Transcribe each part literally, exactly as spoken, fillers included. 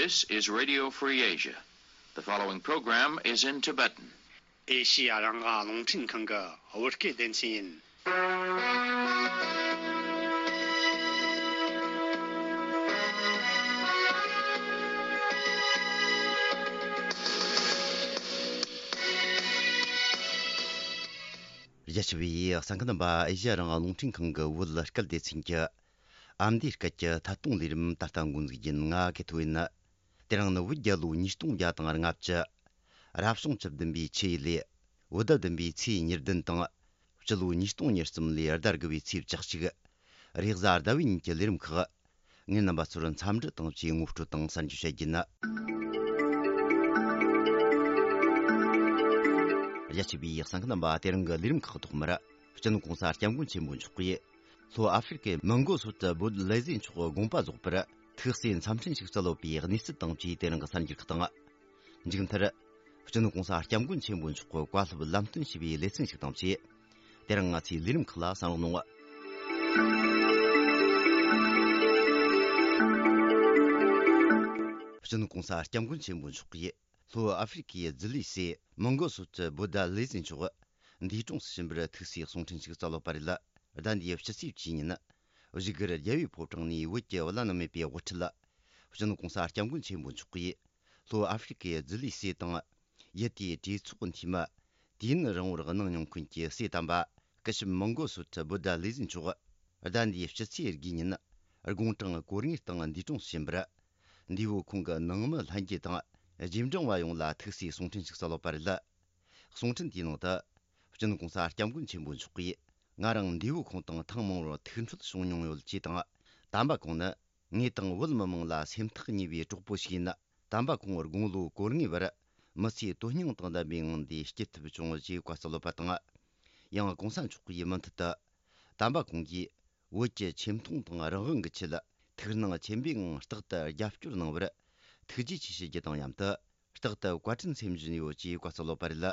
This is Radio Free Asia. The following program is in Tibetan. ཨེ་ཤི་ཡ་རང་དབང་རླུང་འཕྲིན་ཁང་གི་བོད་སྐད་སྡེ་ཚན་ཡིན། རྒྱ་ཆེ་བའི་གསན་མཁན་རྣམ་པ། ཨེ་ཤི་ཡ་རང་དབང་རླུང་འཕྲིན་ཁང་གི་བོད་སྐད་སྡེ་ཚན་གྱི་ཨ་མདོའི་སྐད་ཀྱི་ཐད་གཏོང་ལས་རིམ་ད་ལྟ་འགོ་འཛུགས་ཡིན། ང་གི་ཐོ་ཡིན། དེ་རིང་ནི་བོད་རྒྱལ་ལོ་ཉིས་སྟོང་བརྒྱ་དང་ལྔ་བཅུ། རབ་བྱུང་བཅུ་བདུན་པའི་ཆུ་ཡོས་ལས། བོད་ཟླ་བདུན་པའི་ཚེས་ཉེར་བདུན་དང་། སྤྱི་ལོ་ཉིས་སྟོང་ཉེར་གསུམ་ལོའི་ཟླ་དགུ་བའི་ཚེས་བཅུ་གཅིག་རེས་གཟའ་ཟླ་བའི་ཉིན་གྱི་ལས་རིམ་ཁག་ངས་རྣམ་པ་ཚོར་འཚམས་འདྲི་དང་བཅས་ངོ་སྤྲོད་དང་གསར་འགྱུར་བཤད་རྒྱུ་ཡིན། རྒྱ་ཆེ་བའི་གསན་མཁན་རྣམ་པ། དེ་རིང་གི་ལས་རིམ་ཁག་ཐོག་མར། སྤྱི་ནོར་༸གོང་ས་༸སྐྱབས་མགོན་ཆེན་པོ་མཆོག་གིས་ལྷོ་ཨ་ཧྥེ་རི་ཁའི་མོན་གྷོ་སོག་ཏུ་བོད་ལས་བཟོའི་ཚོགས་དགོངས་པ་རྫོགས་པར་ཐུགས་བརྩེ་འཚམས་འཕྲིན་ཞིག་སྩལ་ཡོད་པའི་གནས་ཚུལ་དང་བཅས་དེ་རིང་གི་གསར་འགྱུར་ཁག་དང་། མཇུག་མཐར། སྤྱི་ནོར་༸གོང་ས་༸སྐྱབས་མགོན་ཆེན་པོ་མཆོག་གི་བཀའ་སློབ་ལམ་སྟོན་ཞུས་པའི་ལེ་ཚན་ཞིག་དང་བཅས། དེ་རིང་ང་ཚོའི་ལས་རིམ་ཁག་ལ་གསན་རོགས་གནང་། སྤྱི་ནོར་༸གོང་ས་༸སྐྱབས་མགོན་ཆེན་པོ་མཆོག་གིས་ལྷོ་ཨ་ཧྥེ་རི་ཁའི་ཛི་ལི་སི་མོན་གྷོ་སོག་ཏུ་བོད་ཟླ་ལས་བཟོའི་ཚོགས་འདས་གྲོངས་སུ་ཕྱིན་པར་ཐུགས་བརྩེའི་གསུང་འཕྲིན་ཞིག་སྩལ་ཡོད་པ་རེད། ཟླ་འདིའི་སྤྱི་ཚེས་བཅུའི་ཉིན། བཞུགས་སྒར་རྒྱལ་བའི་ཕོ་བྲང་ནས་བོད་ཀྱི་བླ་ན་མེད་པའི་དབུ་ཁྲིད། སྤྱི་ནོར་༸གོང་ས་༸སྐྱབས་མགོན་ཆེན་པོ་མཆོག་གིས། ལྷོ་ཨ་ཧྥེ་རི་ཁའི་ཛི་ལི་སི་དང་། ཡུལ་དེའི་གྲོས་ཚོགས་འཐུས་མི། དུས་ཡུན་རིང་བོར་གནང་མྱོང་མཁན་གྱི་སྲས་དམ་པ། སྐུ་ཞབས་མོན་གྷོ་སོག་ཏུ་བོད་ཟླ་ལས་བཟོའི་ཚོགས། ཟླ་འདིའི་སྤྱི་ཚེས་དགུའི་ཉིན། དགུང་གྲངས་གོ་ལྔའི་སྟེང་འདས་གྲོངས་སུ་ཕྱིན་པར། འདས་པོ་ཁོང་གི་ནང་མི་ལྷན་རྒྱས་དང་། རྗེས་འབྲང་བ་ཡོངས་ལ་ཐུགས་བརྩེའི་གསུང་འཕྲིན་ཞིག་སྩལ་ཡོད་པ་རེད། གསུང་འཕྲིན་དེའི་ནང་དུ། སྤྱི་ནོར་༸གོང་ས་༸སྐྱབས་མགོན་ཆེན་པོ་མཆོག་གིས། ང་རང་འདས་པོ་ཁོང་དང་ཐེངས་མང་བོར་ཐུག་འཕྲད་བྱུང་མྱོང་ཡོད་ཅེས་དང་། དམ་པ་ཁོང་ནི། ངེད་དང་བོད་མི་མང་ལ་སེམས་ཐག་ཉེ་བའི་གྲོགས་པོ་ཞིག་ཡིན། དམ་པ་ཁོང་དགུང་ལོ་གོ་ལྔའི་བར་མི་ཚེའི་དོན་སྙིང་དང་ལྡན་པའི་ངང་དེ་སྐྱེལ་ཐུབ་བྱུང་ཞེས་བཀའ་སྩལ་ཡོད་པ་དང་། ཡང་༸གོང་ས་མཆོག་གིས་མུ་མཐུད་དུ། དམ་པ་ཁོང་གིས་བོད་ཀྱི་ཆེ་མཐོང་དང་རང་དབང་གི་ཆེད་ཐུགས་སྣང་ཆེན་པོའི་ངང་རྟག་ཏུ་རྒྱབ་སྐྱོར་གནང་བར་ཐུགས་རྗེ་ཆེ་ཞུ་རྒྱུ་དང་མཉམ་དུ། རྟག་ཏུ་བཀའ་དྲིན་སེམས་བཞིན་ཡོད་ཅེས་བཀའ་སྩལ་ཡོད་པ་རེད།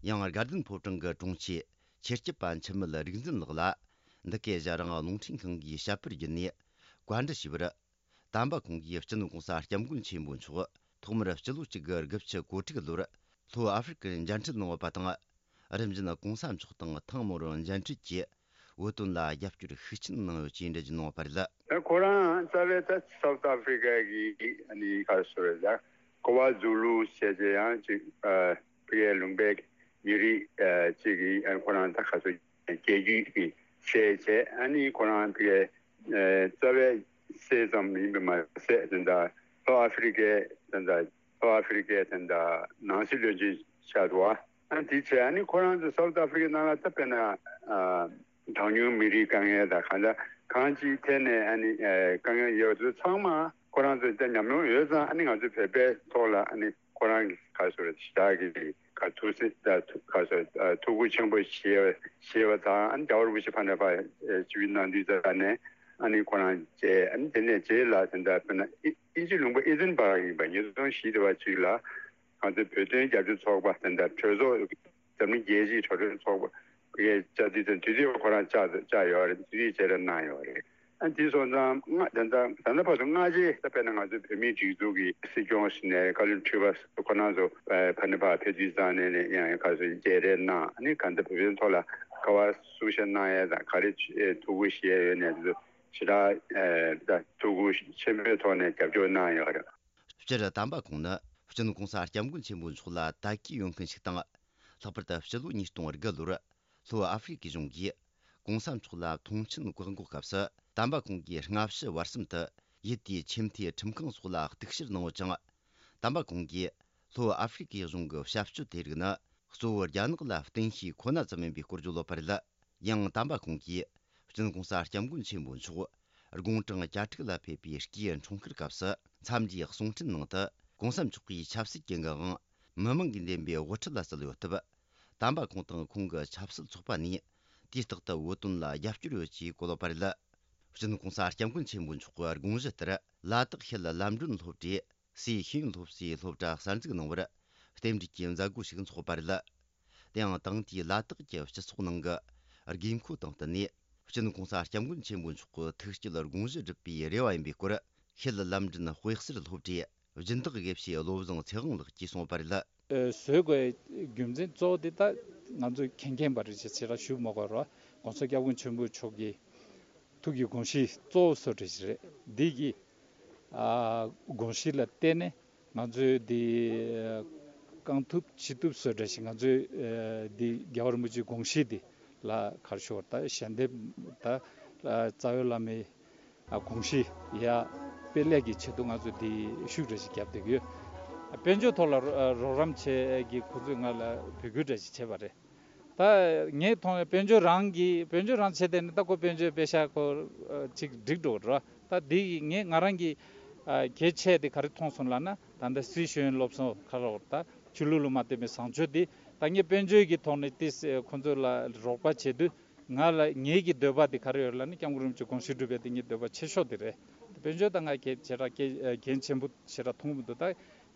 ཡང་དགའ་ལྡན་ཕོ་བྲང་གི་དྲུང་ཆེ་ཆེད་སྐྱབས་པ་འཆི་མེད་རིག་འཛིན་ལགས་ལ། འདི་གའི་ཨེ་ཤ་ཡ་རང་དབང་རླུང་འཕྲིན་ཁང་གིས་བཤད་པར་བརྒྱུད་ནས་བཀའ་འདྲི་ཞུས་པར། དམ་པ་ཁོང་གིས་སྤྱི་ནོར་༸གོང་ས་༸སྐྱབས་མགོན་ཆེན་པོ་མཆོག་ཐོག་མར་སྤྱི་ལོ་གཅིག་དགུ་དགུ་བཅུ་གོ་དྲུག་ལོར་ལྷོ་ཨ་ཧྥེ་རི་ཁར་མཇལ་འཕྲད་གནང་ཡོད་པ་དང་། རིམ་བཞིན་༸གོང་ས་མཆོག་དང་ཐེངས་མང་བོར་མཇལ་འཕྲད་ཀྱིས་བོད་དོན་ལ་རྒྱབ་སྐྱོར་ཤུགས་ཆེན་གནང་ཡོད་ཅེས་འགྲེལ་བརྗོད་གནང་ཡོད་པ་རེད། ཁོ་རང་རྩ་བའི་ད་སའུ་ཐི་ཨ་ཧྥེ་རི་ཀ་གི་ཨ་ནི་ག་རེ་ཟེར་ཡ། ཀོ་བ་ཛུ་ལུ་ཟེར་བྱས་ཡང་ཅིག་ཨ་ཕ་གིའི་ལུང་པའི་མི་རིགས་ཨ་ཅིག་གི་ཨ་ཁོ་རང་ད་ག་ཚོད་རྒྱལ་རྒྱུད་ཀྱི་སྲས་བྱས། ཨ་ནི་ཁོ་རང་ཕ་གིའི་ཨ་རྩ་བའི་སྲས་ཙམ་ཡིན་པ་མ་ཟད། དེ་འདྲ་ལྷོ་ཨ་ཧྥེ་རི་ཀའི་དེ་འདྲ་ལྷོ་ཨ་ཧྥེ་རི་ཀའི་དེ་འདྲ་ནང་སྲིད་བློན་ཆེན་ཆགས་འདུག་བ། ཨ་དེ་བྱས་ཨ་ནི་ཁོ་རང་ཚོ་སའུ་ཐི་ཨ་ཧྥེ་རི་ཀའི་ནང་ལ་ད་དཔེར་ན་ཨ། གྲངས་ཉུང་མི་རིགས་དཀའ་ངལ་དང་གང་ལྟར་གང་ཅིའི་ཐད་ནས་ཨ་ནི་ཨེ་དཀའ་ངལ་ཡོད་པ་ཚོ་ཚང་མ་ཁོ་རང་ཚོ་ད་ཉམས་མྱོང་ཡོད་ཙང་། ཨ་ནི་ང་ཚོ་བོད་པའི་ཐོག་ལ་ཨ་ནི་ཁོ་རང་གི་ག་རེ་ཟེར་ཞེ་དྲག་གི་ག་ཐུགས་སེམས་ད་ཐུགས་ག་རེ་ཟེར་ཨ་ཐུགས་ཁུར་ཆེན་པོ་བཞེས་བཞེས་པ་དང་། ཨ་ནི་རྒྱལ་བ་རིན་པོ་ཆེ་ཕ་ནས་ཕར་ཨེ་ཆིབས་བསྒྱུར་གནང་དུས་ཙམ་ནས་ཨ་ནི་ཁོ་རང་མཇལ། ཨ་ནི་དེ་ནས་རྗེས་ལ་དེ་འདྲ་དཔེར་ན་ཨི་ཨིན་ཇི་ལུང་པ་ཨེ་ཐན་པཱརྐ་ཡིན་པ། ཉིས་སྟོང་བཞི་དེ་བར་ཅིག་ལ་ང་ཚོ་བོད་དོན་རྒྱབ་སྐྱོར་ཚོགས་པ་དེ་འདྲ་གྲོས་ཚོགས། འཛམ་གླིང་རྒྱལ་སྤྱིའི་གྲོས་ཚོགས་ཚོགས་པ་གིས་བཅར་དུས་ཙམ། དུས་དེ་ཁོ་རང་བཅར་བཅར་ཡོད་རེད། དུས་དེ་བཅར་གནང་ཡོད་རེད། ཨ་དེ་སོང་ཙང་ང་ད་ལྟ་ད་ལྟ་བར་དུ་སྔ་རྗེས་ད་དཔེར་ན་ང་ཚོའི་བོད་མིའི་སྒྲིག་འཛུགས་ཀྱི་སྲིད་སྐྱོང་ཟེར་ནས་བཀའ་བློན་ཁྲི་པ་ཁོ་རང་ཚོ་ཕ་ནས་ཕར་ཕེབས་དུས་ཙམ་ནས་ནས་ཡང་ག་ཚོད་མཇལ་རེས་གནང་། ཨ་ནི་གང་ལྟར་བོད་དོན་ཐོག་ལ་ག་བ་གསུང་བཤད་གནང་ཡས་དང་ག་རེ་ཐུགས་ཁུར་བཞེས་ཡོད་ནས་དེ་ཚོ་ཞེ་དྲག་ད་ཐུགས་ཁུར་ཆེན་པོའི་ཐོག་ནས་རྒྱབ་སྐྱོར་གནང་ཡོད་རེད། སྤྱིར་དམ་པ་ཁོང་ནི་སྤྱི་ནོར་༸གོང་ས་༸སྐྱབས་མགོན་ཆེན་པོ་མཆོག་ལ་དད་གུས་ཡོད་མཁན་ཞིག་དང་། ལྷག་པར་དུ་སྤྱི་ལོ་ཉིས་སྟོང་དགུ་ལོར་ལྷོ་ཨ་ཧྥེ་རི་ཁའི་གཞུང་གིས་༸གོང་ས་མཆོག་ལ་མཐོང་མཆན་བཀག་འགོག་སྐབས་སུ། དམ་པ་ཁོང་གིས་སྔ་ཕྱི་བར་གསུམ་དུ་ཡུལ་དེའི་ཆེས་མཐོའི་ཁྲིམས་ཁང་སོགས་ལ་གཏུག་བཤེར་གནང་ཡོད་ཅིང་། དམ་པ་ཁོང་གིས་ལྷོ་ཨ་ཧྥེ་རི་ཁའི་གཞུང་གི་བྱ་སྤྱོད་དེ་རིགས་ནི་གཙོ་བོ་རྒྱ་ནག་ལ་བརྟེན་ཤེས་ཁོ་ན་ཙམ་ཡིན་པའི་སྐོར་བརྗོད་ཡོད་པ་རེད། ཡང་དམ་པ་ཁོང་གིས་སྤྱི་ནོར་༸གོང་ས་༸སྐྱབས་མགོན་ཆེན་པོ་མཆོག་དགུང་གྲངས་གྱ་དྲུག་ལ་ཕེབས་པའི་སྐུའི་འཁྲུངས་སྐར་སྐབས་སུ་འཚམས་འདྲིའི་གསུང་འཕྲིན་ནང་དུ། ༸གོང་ས་མཆོག་གིས་ཆབ་སྲིད་ཀྱི་ངག་དབང་མི་མང་གིས་འདེམས་པའི་དབུ་ཁྲིད་ལ་སྩལ་ཡོད་སྟབས། དམ་པ་ཁོང་དང་ཁོང་གི་ཆབ་སྲིད་ཚོགས་པ་ནས་དུས་རྟག་ཏུ་བོད་དོན་ལ་རྒྱབ་སྐྱོར་ཡོད་ཅེས་བཀོད་ཡོད་པ་རེད། སྤྱི་ནོར་༸གོང་ས་༸སྐྱབས་མགོན་ཆེན་པོ་མཆོག་གི་དགོངས་གཞི་ལྟར། ལ་དྭགས་ཤེལ་ལམ་སྒྲོན་སློབ་གྲྭའི་སྲས་ཤེས་ཡོན་སློབ་གསོའི་སློབ་གྲྭ་གསར་འཛུགས་གནང་བར་རྟེན་འབྲེལ་གྱི་མཛད་སྒོ་ཞིག་འཚོགས་པ་རེད། དེའང་དེང་དུས་ལ་དྭགས་ཀྱི་སྤྱི་ཚོགས་ནང་གི་དགོས་མཁོ་དང་བསྟུན་ནས། སྤྱི་ནོར་༸གོང་ས་༸སྐྱབས་མགོན་ཆེན་པོ་མཆོག་གི་ཐུགས་བསྐྱེད་དགོངས་གཞི་སྒྲུབ་པའི་རེ་བ་ཡིན་པའི་སྐོར། ཤེལ་ལམ་སྒྲོན་དཔེ་གསར་སློབ་གྲྭའི་ སྦྱིན་བདག་དགེ་བཤེས་བློ་བཟང་ཚེ་དབང་ལགས་ཀྱིས་གསུངས་པ་རེད། བཟོ་དགོས་རྒྱུ་མཚན་གཙོ་བོ་དེ་ད་ང་ཚོས་མཁྱེན་མཁྱེན་པ་རེད་ཅེས་ཆེ་ར་ཞུ་མ་དགོས་ར། ༸གོང་ས་༸སྐྱབས་མགོན་ཆེན་པོ་མཆོག་གི་ཐུགས་ཀྱི་དགོངས་གཞི་གཙོ་བོ་བཟོ་འདྲ་ཞིག་རེད། འདི་གི་ཨ་དགོངས་གཞི་ལ་བརྟེན་ནས་ང་ཚོས་འདི་རྐང་ཐུབ་ཕྱི་ཐུབ་བཟོ་འདྲ་ཞིག་ང་ཚོས་འདི་རྒྱལ་བ་རིན་པོ་ཆེའི་དགོངས་གཞི་འདི་ལ་ག་རེ་ཞུ་དགོས་རེད། ད་ཞལ་འདེབས་ད་རྩ་བའི་བླ་མའི་ཨ་དགོངས་གཞི་ཡ་དཔེ་ལེགས་ཀྱི་ཆེད་དུ་ང་ཚོས་འདི་ཤུགས་འདྲ་ཞིག་བརྒྱབ་བསྡད་ཀྱི་ཡོད། དཔལ་འབྱོར་ཐོག་ལ་རོགས་རམ་བྱེད་ཀྱི་ཁོ་ཚོས་ང་ལ་འབོད་སྐུལ་འདྲ་ཞིག་བྱས་པ་རེད། ད་ངས་མཐོང་བའི་དཔལ་འབྱོར་རང་གིས་དཔལ་འབྱོར་རང་བྱས་ཏེ་ནི་ད་ཁོ་དཔལ་འབྱོར་པེ་ཤག་ཁོ་ཅིག་འགྲིག་འགྲོ་ར། ད་འདི་ངས་ང་རང་གི་གལ་ཆེ་དེ་ག་རེ་མཐོང་སོང་ལབ་ན། ད་ལྟ་སི་ཤེས་ཡོན་སློབ་གསོ་ཁ་རོག་ད་ཆོས་ལུགས་ལ་མ་བརྟེན་པའི་བཟང་སྤྱོད་འདི་ད་ངས་དཔལ་འབྱོར་གྱི་ཐོག་ནས་ཏིས་ཁོ་ཚོ་ལ་རོགས་པ་བྱེད་དུས། ང་ལ་ངེད་ཀྱི་འདོད་པ་དེ་ག་རེ་ཡོད་ལབ་ན། སྐྱབས་མགོན་རིན་པོ་ཆེ་དགོངས་གཞི་སྒྲུབ་པའི་དེ་ངའི་འདོད་པ་ཆེ་ཤོས་དེ་རེད། དཔལ་འབྱོར་དང་ང་གལ་ཆེ་དྲགས་གལ་འགན་ཆེན་པོ་ཆེ་དྲགས་མཐོང་གི་མི་འདུག་ད་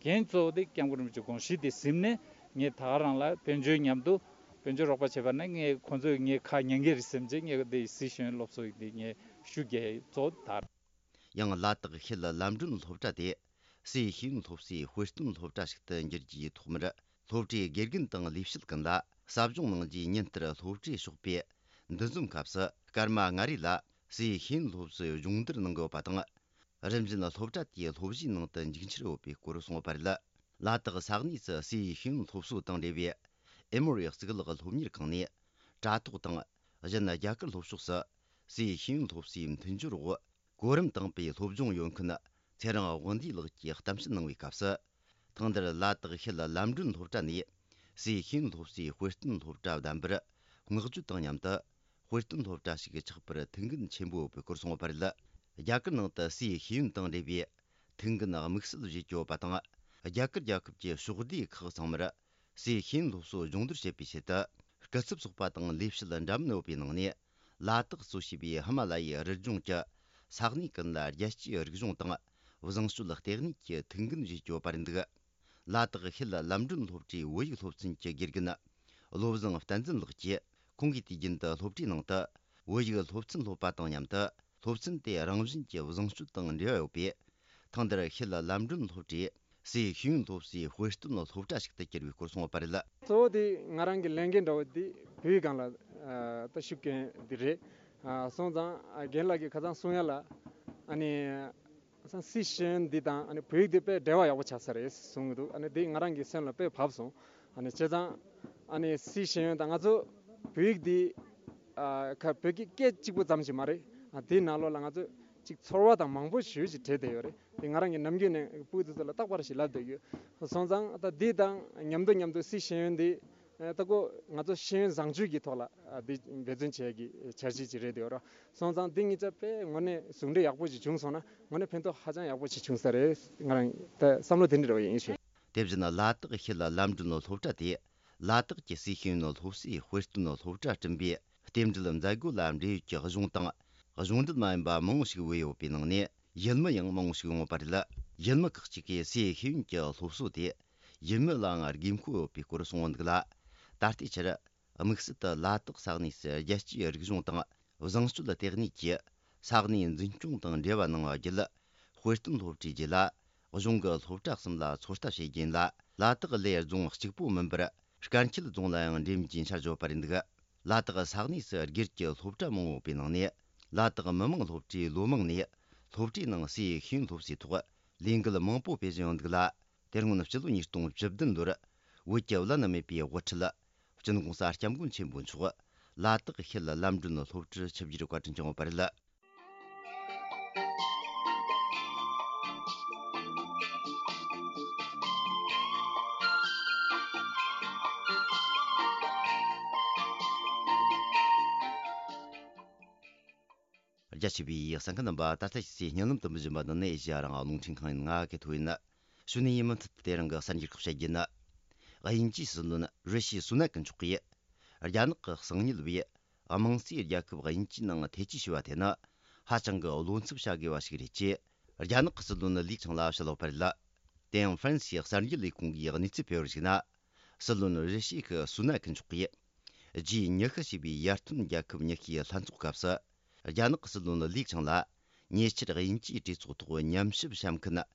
འགན་གཙོ་བོ་དེ་སྐྱབས་མགོན་རིན་པོ་ཆེ་དགོངས་གཞི་དེ་ཟིན་ནས་ངས་ད་ག་རང་ལ་དཔལ་འབྱོར་མཉམ་དུ་དཔལ་འབྱོར་རོགས་པ་བྱས་པ་ན་ངས་ཁོང་ཚོས་ངའི་ཁ་ཉན་གི་རེད་བསམ་བྱས། ངས་དེ་སི་ཤེས་ཡོན་སློབ་གསོ་ཡི་དེ་ངས་ཤུགས་རྒྱག་གཙོ་བོ་དེ་རེད། ཡང་ལ་དྭགས་ཤེལ་ལམ་སྒྲོན་སློབ་གྲྭ་དེ་སི་ཤེས་ཡོན་སློབ་གསོའི་དཔེ་སྟོན་སློབ་གྲྭ་ཞིག་ཏུ་འགྱུར་རྒྱུའི་ཐོག་མར། སློབ་གྲྭའི་དགེ་རྒན་དང་ལས་བྱེད་ཀུན་ལ་ཟབ་སྦྱོང་གནང་རྒྱུའི་ཉིན་ལྟར་སློབ་གྲྭའི་ཞོགས་པའི་འདུ་འཛོམས་སྐབས་སུ། སྐར་མ་ལྔ་རེ་ལ་སའི་ཤེས་ཡོན་སློབ་གསོའི་སྦྱོང་བརྡར་གནང་གི་ཡོད་པ་དང་། རིམ་བཞིན་སློབ་གྲྭ་དེའི་སློབ་གཞིའི་ནང་དུ་འཇུག་འཆར་ཡོད་པའི་སྐོར་གསུངས་པ་རེད། ལ་དྭགས་ས་གནས་སུ་སའི་ཤེས་ཡོན་སློབ་གསོ་དང་འབྲེལ་བའི་ཨེ་མོ་རི་གཙུག་ལག་སློབ་གཉེར་ཁང་ནས། དྲ་ཐོག་དང་གཞན་རྒྱ་གར་སློབ་ཕྱོགས་སུ་སའི་ཤེས་ཡོན་སློབ་གསོའི་མཐུན་སྦྱོར་འོག་གོ་རིམ་དང་པོའི་སློབ་སྦྱོང་ཡོད་མཁན་ཚེ་རིང་དབང་འདུས་ལགས་ཀྱིས་གཏམ་བཤད་གནང་བའི་སྐབས་སུ། ཐེངས་འདིར་ལ་དྭགས་ཤེལ་ལམ་སྒྲོན་སློབ་གྲྭ་ནས་སའི་ཤེས་ཡོན་སློབ་གསོའི་དཔེ་སྟོན་སློབ་གྲྭ་བདམས་པར་བསྔགས་བརྗོད་དང་མཉམ་དུ། དཔེ་སྟོན་སློབ་གྲྭ་ཞིག་ཆགས་པར་ཐུགས་འགན་ཆེན་པོ་ཡོད་པའི་སྐོར་གསུངས་པ་རེད། རྒྱ་གར་ནང་དུ་སའི་ཤེས་ཡོན་དང་འབྲེལ་བའི་ཐུགས་འགན་དམིགས་བསལ་བཞེས་ཀྱི་ཡོད་པ་དང་། རྒྱ་གར་རྒྱལ་ཁབ་ཀྱི་ཕྱོགས་བསྡུས་ཁག་ཚང་མར། སའི་ཤེས་ཡོན་སློབ་གསོ་སྦྱོང་བརྡར་བྱེད་པའི་ཆེད་དུ། སྐུ་ཚབ་ཚོགས་པ་དང་ལས་བྱེད་འདྲ་མིན་ཡོད་པའི་ནང་ནས། ལ་དྭགས་གཙོ་བྱས་པའི་ཧི་མ་ལ་ཡའི་རི་ལྗོངས་ཀྱི་ས་གནས་ཀུན་ལ་རྒྱལ་སྤྱིའི་རིག་གཞུང་དང་བཟང་སྤྱོད་ལྟེ་གནས་ཀྱི་ཐུགས་འགན་བཞེས་ཀྱི་ཡོད་པ་རེད་འདུག་ལ་དྭགས་ཤེལ་ལམ་སྒྲོན་སློབ་གྲྭའི་བོད་ཡིག་སློབ་ཚན་གྱི་དགེ་རྒན་བློ་བཟང་བསྟན་འཛིན་ལགས་ཀྱིས། ཁོང་གིས་དུས་རྒྱུན་དུ་སློབ་གྲྭའི་ནང་དུ་བོད་ཡིག་སློབ་ཚན་སློབ་པ་དང་མཉམ་དུ། སློབ་ཚན་དེ་རང་བཞིན་གྱིས་བཟང་སྤྱོད་དང་འབྲེལ་བ་ཡོད་པས། ཐེངས་འདིར་ཤེལ་ལམ་སྒྲོན་སློབ་གྲྭས་སའི་ཤེས་ཡོན་སློབ་གསོའི་དཔེ་སྟོན་སློབ་གྲྭ་ཞིག་ཏུ་གྱུར་བའི་སྐོར་གསུངས་པ་རེད། གཙོ་བོ་དེ་ང་རང་གི་ལས་འགན་འདྲ་བོ་དེ་བོད་ཡིག་སྒང་ལ་ད་ཤུགས་རྐྱེན་འདི་རེད། སོང་ཙང་རྒན་ལགས་ཀྱིས་ཁ་སང་གསུང་ཡ་ལ་ཨ་ནི། སང་སི་ཤེས་ཡོན་འདི་དང་ཨ་ནི་བོད་ཡིག་འདི་དཔེ་འབྲེལ་བ་ཡག་པོ་ཆགས་ས་རེད་གསུང་གི་འདུག་ཨ་ནི་འདི་ང་རང་གི་སེམས་ལ་དཔེ་བབས་སོང་། ཨ་ནི་བྱས་ཙང་ཨ་ནི་སི་ཤེས་ཡོན་དང་ང་ཚོ་བོད་ཡིག་འདི་ཨ་ཁ་བོད་ཀྱི་སྐད་གཅིག་པུ་ཙམ་ཞིག་མ་རེད། ཨ་འདི་ནང་ལོགས་ལ་ང་ཚོ་ཅིག་ཚོར་བ་དང་མང་པོ་ཞེ་ཅིག་འདྲེས་བསྡད་ཡོད་རེད། འདི་ང་རང་གི་ནམ་རྒྱུན་ནས་སྤུ་གུ་དེ་ཚོ་ལ་རྟག་པར་ཞིག་ལབ་བསྡད་ཡོད། སོང་ཙང་ད་འདི་དང་མཉམ་དུ་མཉམ་དུ་སི་ཤེས་ཡོན་འདི་ད་ཁོ་ང་ཚོ་ཤེས་ཡོན་བཟང་སྤྱོད་ཀྱི་ཐོག་ལ་འདི་འབད་བརྩོན་བྱེད་ཀྱི་འཆར་གཞི་ཅིག་རེད་འདུག་ར། སོང་ཙང་འདི་གཉིས་ཆ་དཔེ་དངོས་གནས་ཟུང་འབྲེལ་ཡག་པོ་ཞིག་བྱུང་སོང་ན་དངོས་གནས་ཕན་ཐོགས་ཧ་ཅང་ཡག་པོ་ཞིག་བྱུང་ས་རེད། ང་རང་ད་བསམ་བློ་དེ་འདྲ་རེ་བ་ཡིན་ཞུ། དེ་བཞིན་ལ་དྭགས་ཤེལ་ལམ་སྒྲོན་སློབ་གྲྭ་དེ་ལ་དྭགས་ཀྱི་སའི་ཤེས་ཡོན་སློབ་གསོའི་དཔེ་སྟོན་སློབ་གྲྭ་བསྐྲུན་པའི་རྟེན་འབྲེལ་མཛད་སྒོ་ལ་འབྲེལ་ཡོད་ཀྱི་གཞུང་དང་གཞུང་འབྲེལ་མ་ཡིན་པ་མང་བོ་ཞིག་བོས་ཡོད་པའི་ནང་ནས། ཡུལ་མི་ཡང་མང་བོ་ཞིག་ཡོང་བ་རེད། ཡུལ་མི་ཁག་ཅིག་གིས་སའི་ཤེས་ཡོན་གྱི་སློབ་གསོ་དེ་ཡུལ་མི་ལའང་དགོས་མཁོ་ཡོད་པའི་སྐོར་གསུངས་འདུག་ལ། ད་ལྟའི་ཆར་དམིགས་བསལ་དུ་ལ་དྭགས་ས་གནས་སུ་རྒྱལ་སྤྱིའི་རིག་གཞུང་དང་བཟང་སྤྱོད་ལྟེ་གནས་ཀྱིས་ས་གནས་འཛིན་སྐྱོང་དང་འབྲེལ་བ་གནང་བ་བརྒྱུད། དཔེ་སྟོན་སློབ་གྲྭའི་རྗེས་ལ་གཞུང་གི་སློབ་གྲྭ་གསུམ་ལ་ཚོད་ལྟ་བྱེད་རྒྱུ་ཡིན་ལ། ལ་དྭགས་ལའི་རྫོང་གཅིག་པོ་མིན་པར་དཀར་མཁྱེན་རྫོང་ལ་ཡང་འགྲེམས་རྒྱུའི་འཆར་བཞག་པ་རེད་འདུག་ལ་དྭགས་ས་གནས་སུ་སྒེར་གྱི་སློབ་གྲྭ་མང་བོ་ཡོད་པའི་ནང་ནས། ལ་དྭགས་མི་དམངས་སློབ་གྲྭའི་ལོ་མང་ནས་སློབ་གྲྭའི་ནང་སའི་ཤེས་ཡོན་སློབ་གསོའི་ཐོག་ལས་འགུལ་མང་པོ་སྤེལ་བཞིན་ཡོད་འདུག་ལ། དེ་སྔོན་སྤྱི་ལོ་ཉིས་སྟོང་བཅུ་བདུན་ལོར་བོད་ཀྱི་བླ་ན་མེད་པའི་དབུ་ཁྲིད་སྤྱི་ནོར་༸གོང་ས་༸སྐྱབས་མགོན་ཆེན་པོ་མཆོག་ལ་དྭགས་ཤེལ་ལམ་སྒྲོན་སློབ་གྲྭར་ཆིབས་བསྒྱུར་བཀའ་དྲིན་བསྐྱངས་པ་རེད། རྒྱ་ཆེ་བའི་གསན་མཁན་རྣམ་པ། ད་ལྟ་ཕྱི་སའི་བརྙན་ལམ་དུ་འབུལ་བཞིན་པ་འདི་ནི་ཨེ་ཤེ་ཡ་རང་དབང་རླུང་འཕྲིན་ཁང་ཡིན། ང་གི་ཐོ་ཡིན། གཞུག་ནས་ཡིན་མུ་མཐུད་དེ་རིང་གི་གསར་འགྱུར་ཁག་བཤད་རྒྱུ་ཡིན། དབྱིན་ཇིའི་སྲིད་བློན་རི་ཤི་སུ་ནག་གིས་མཆོག་གིས་རྒྱ་ནག་གི་གསང་ཉུལ་བས་དམངས་གཙོའི་རྒྱལ་ཁབ་དབྱིན་ཇིའི་ནང་ཐེ་ཇུས་ཞུས་པ་དེ་ནི་ཧ་ཅང་གི་བློ་འཚབ་བྱ་དགོས་པ་ཞིག་རེད་ཅེས་རྒྱ་ནག་གི་སྲིད་བློན་ལི་ཆང་ལ་བཤད་ཡོད་པ་རེད། དེ་ཡང་ཧྥ་རན་སིའི་གསར་འགྱུར་ལས་ཁུངས་ཀྱིས་གནས་ཚུལ་སྤེལ་བར་གཞིགས་ན། སྲིད་བློན་རི་ཤི་ཁི་སུ་ནག་གིས་མཆོག་གིས་ཇི་ཉི་ཤུ་ཞེས་པའི་ཡར་ཐོན་རྒྱལ་ཁབ་ཉི་ཤུའི་ལྷན་ཚོགས་སྐབས་སུ། རྒྱ་ནག་གི་སྲིད་བློན་ལི་ཆང་ལ་ཉེ་ཆར་དབྱིན་ཇིའི་གྲོས་ཚོགས་ཐོག་ཉམས་ཞིབ་བྱ་མཁན་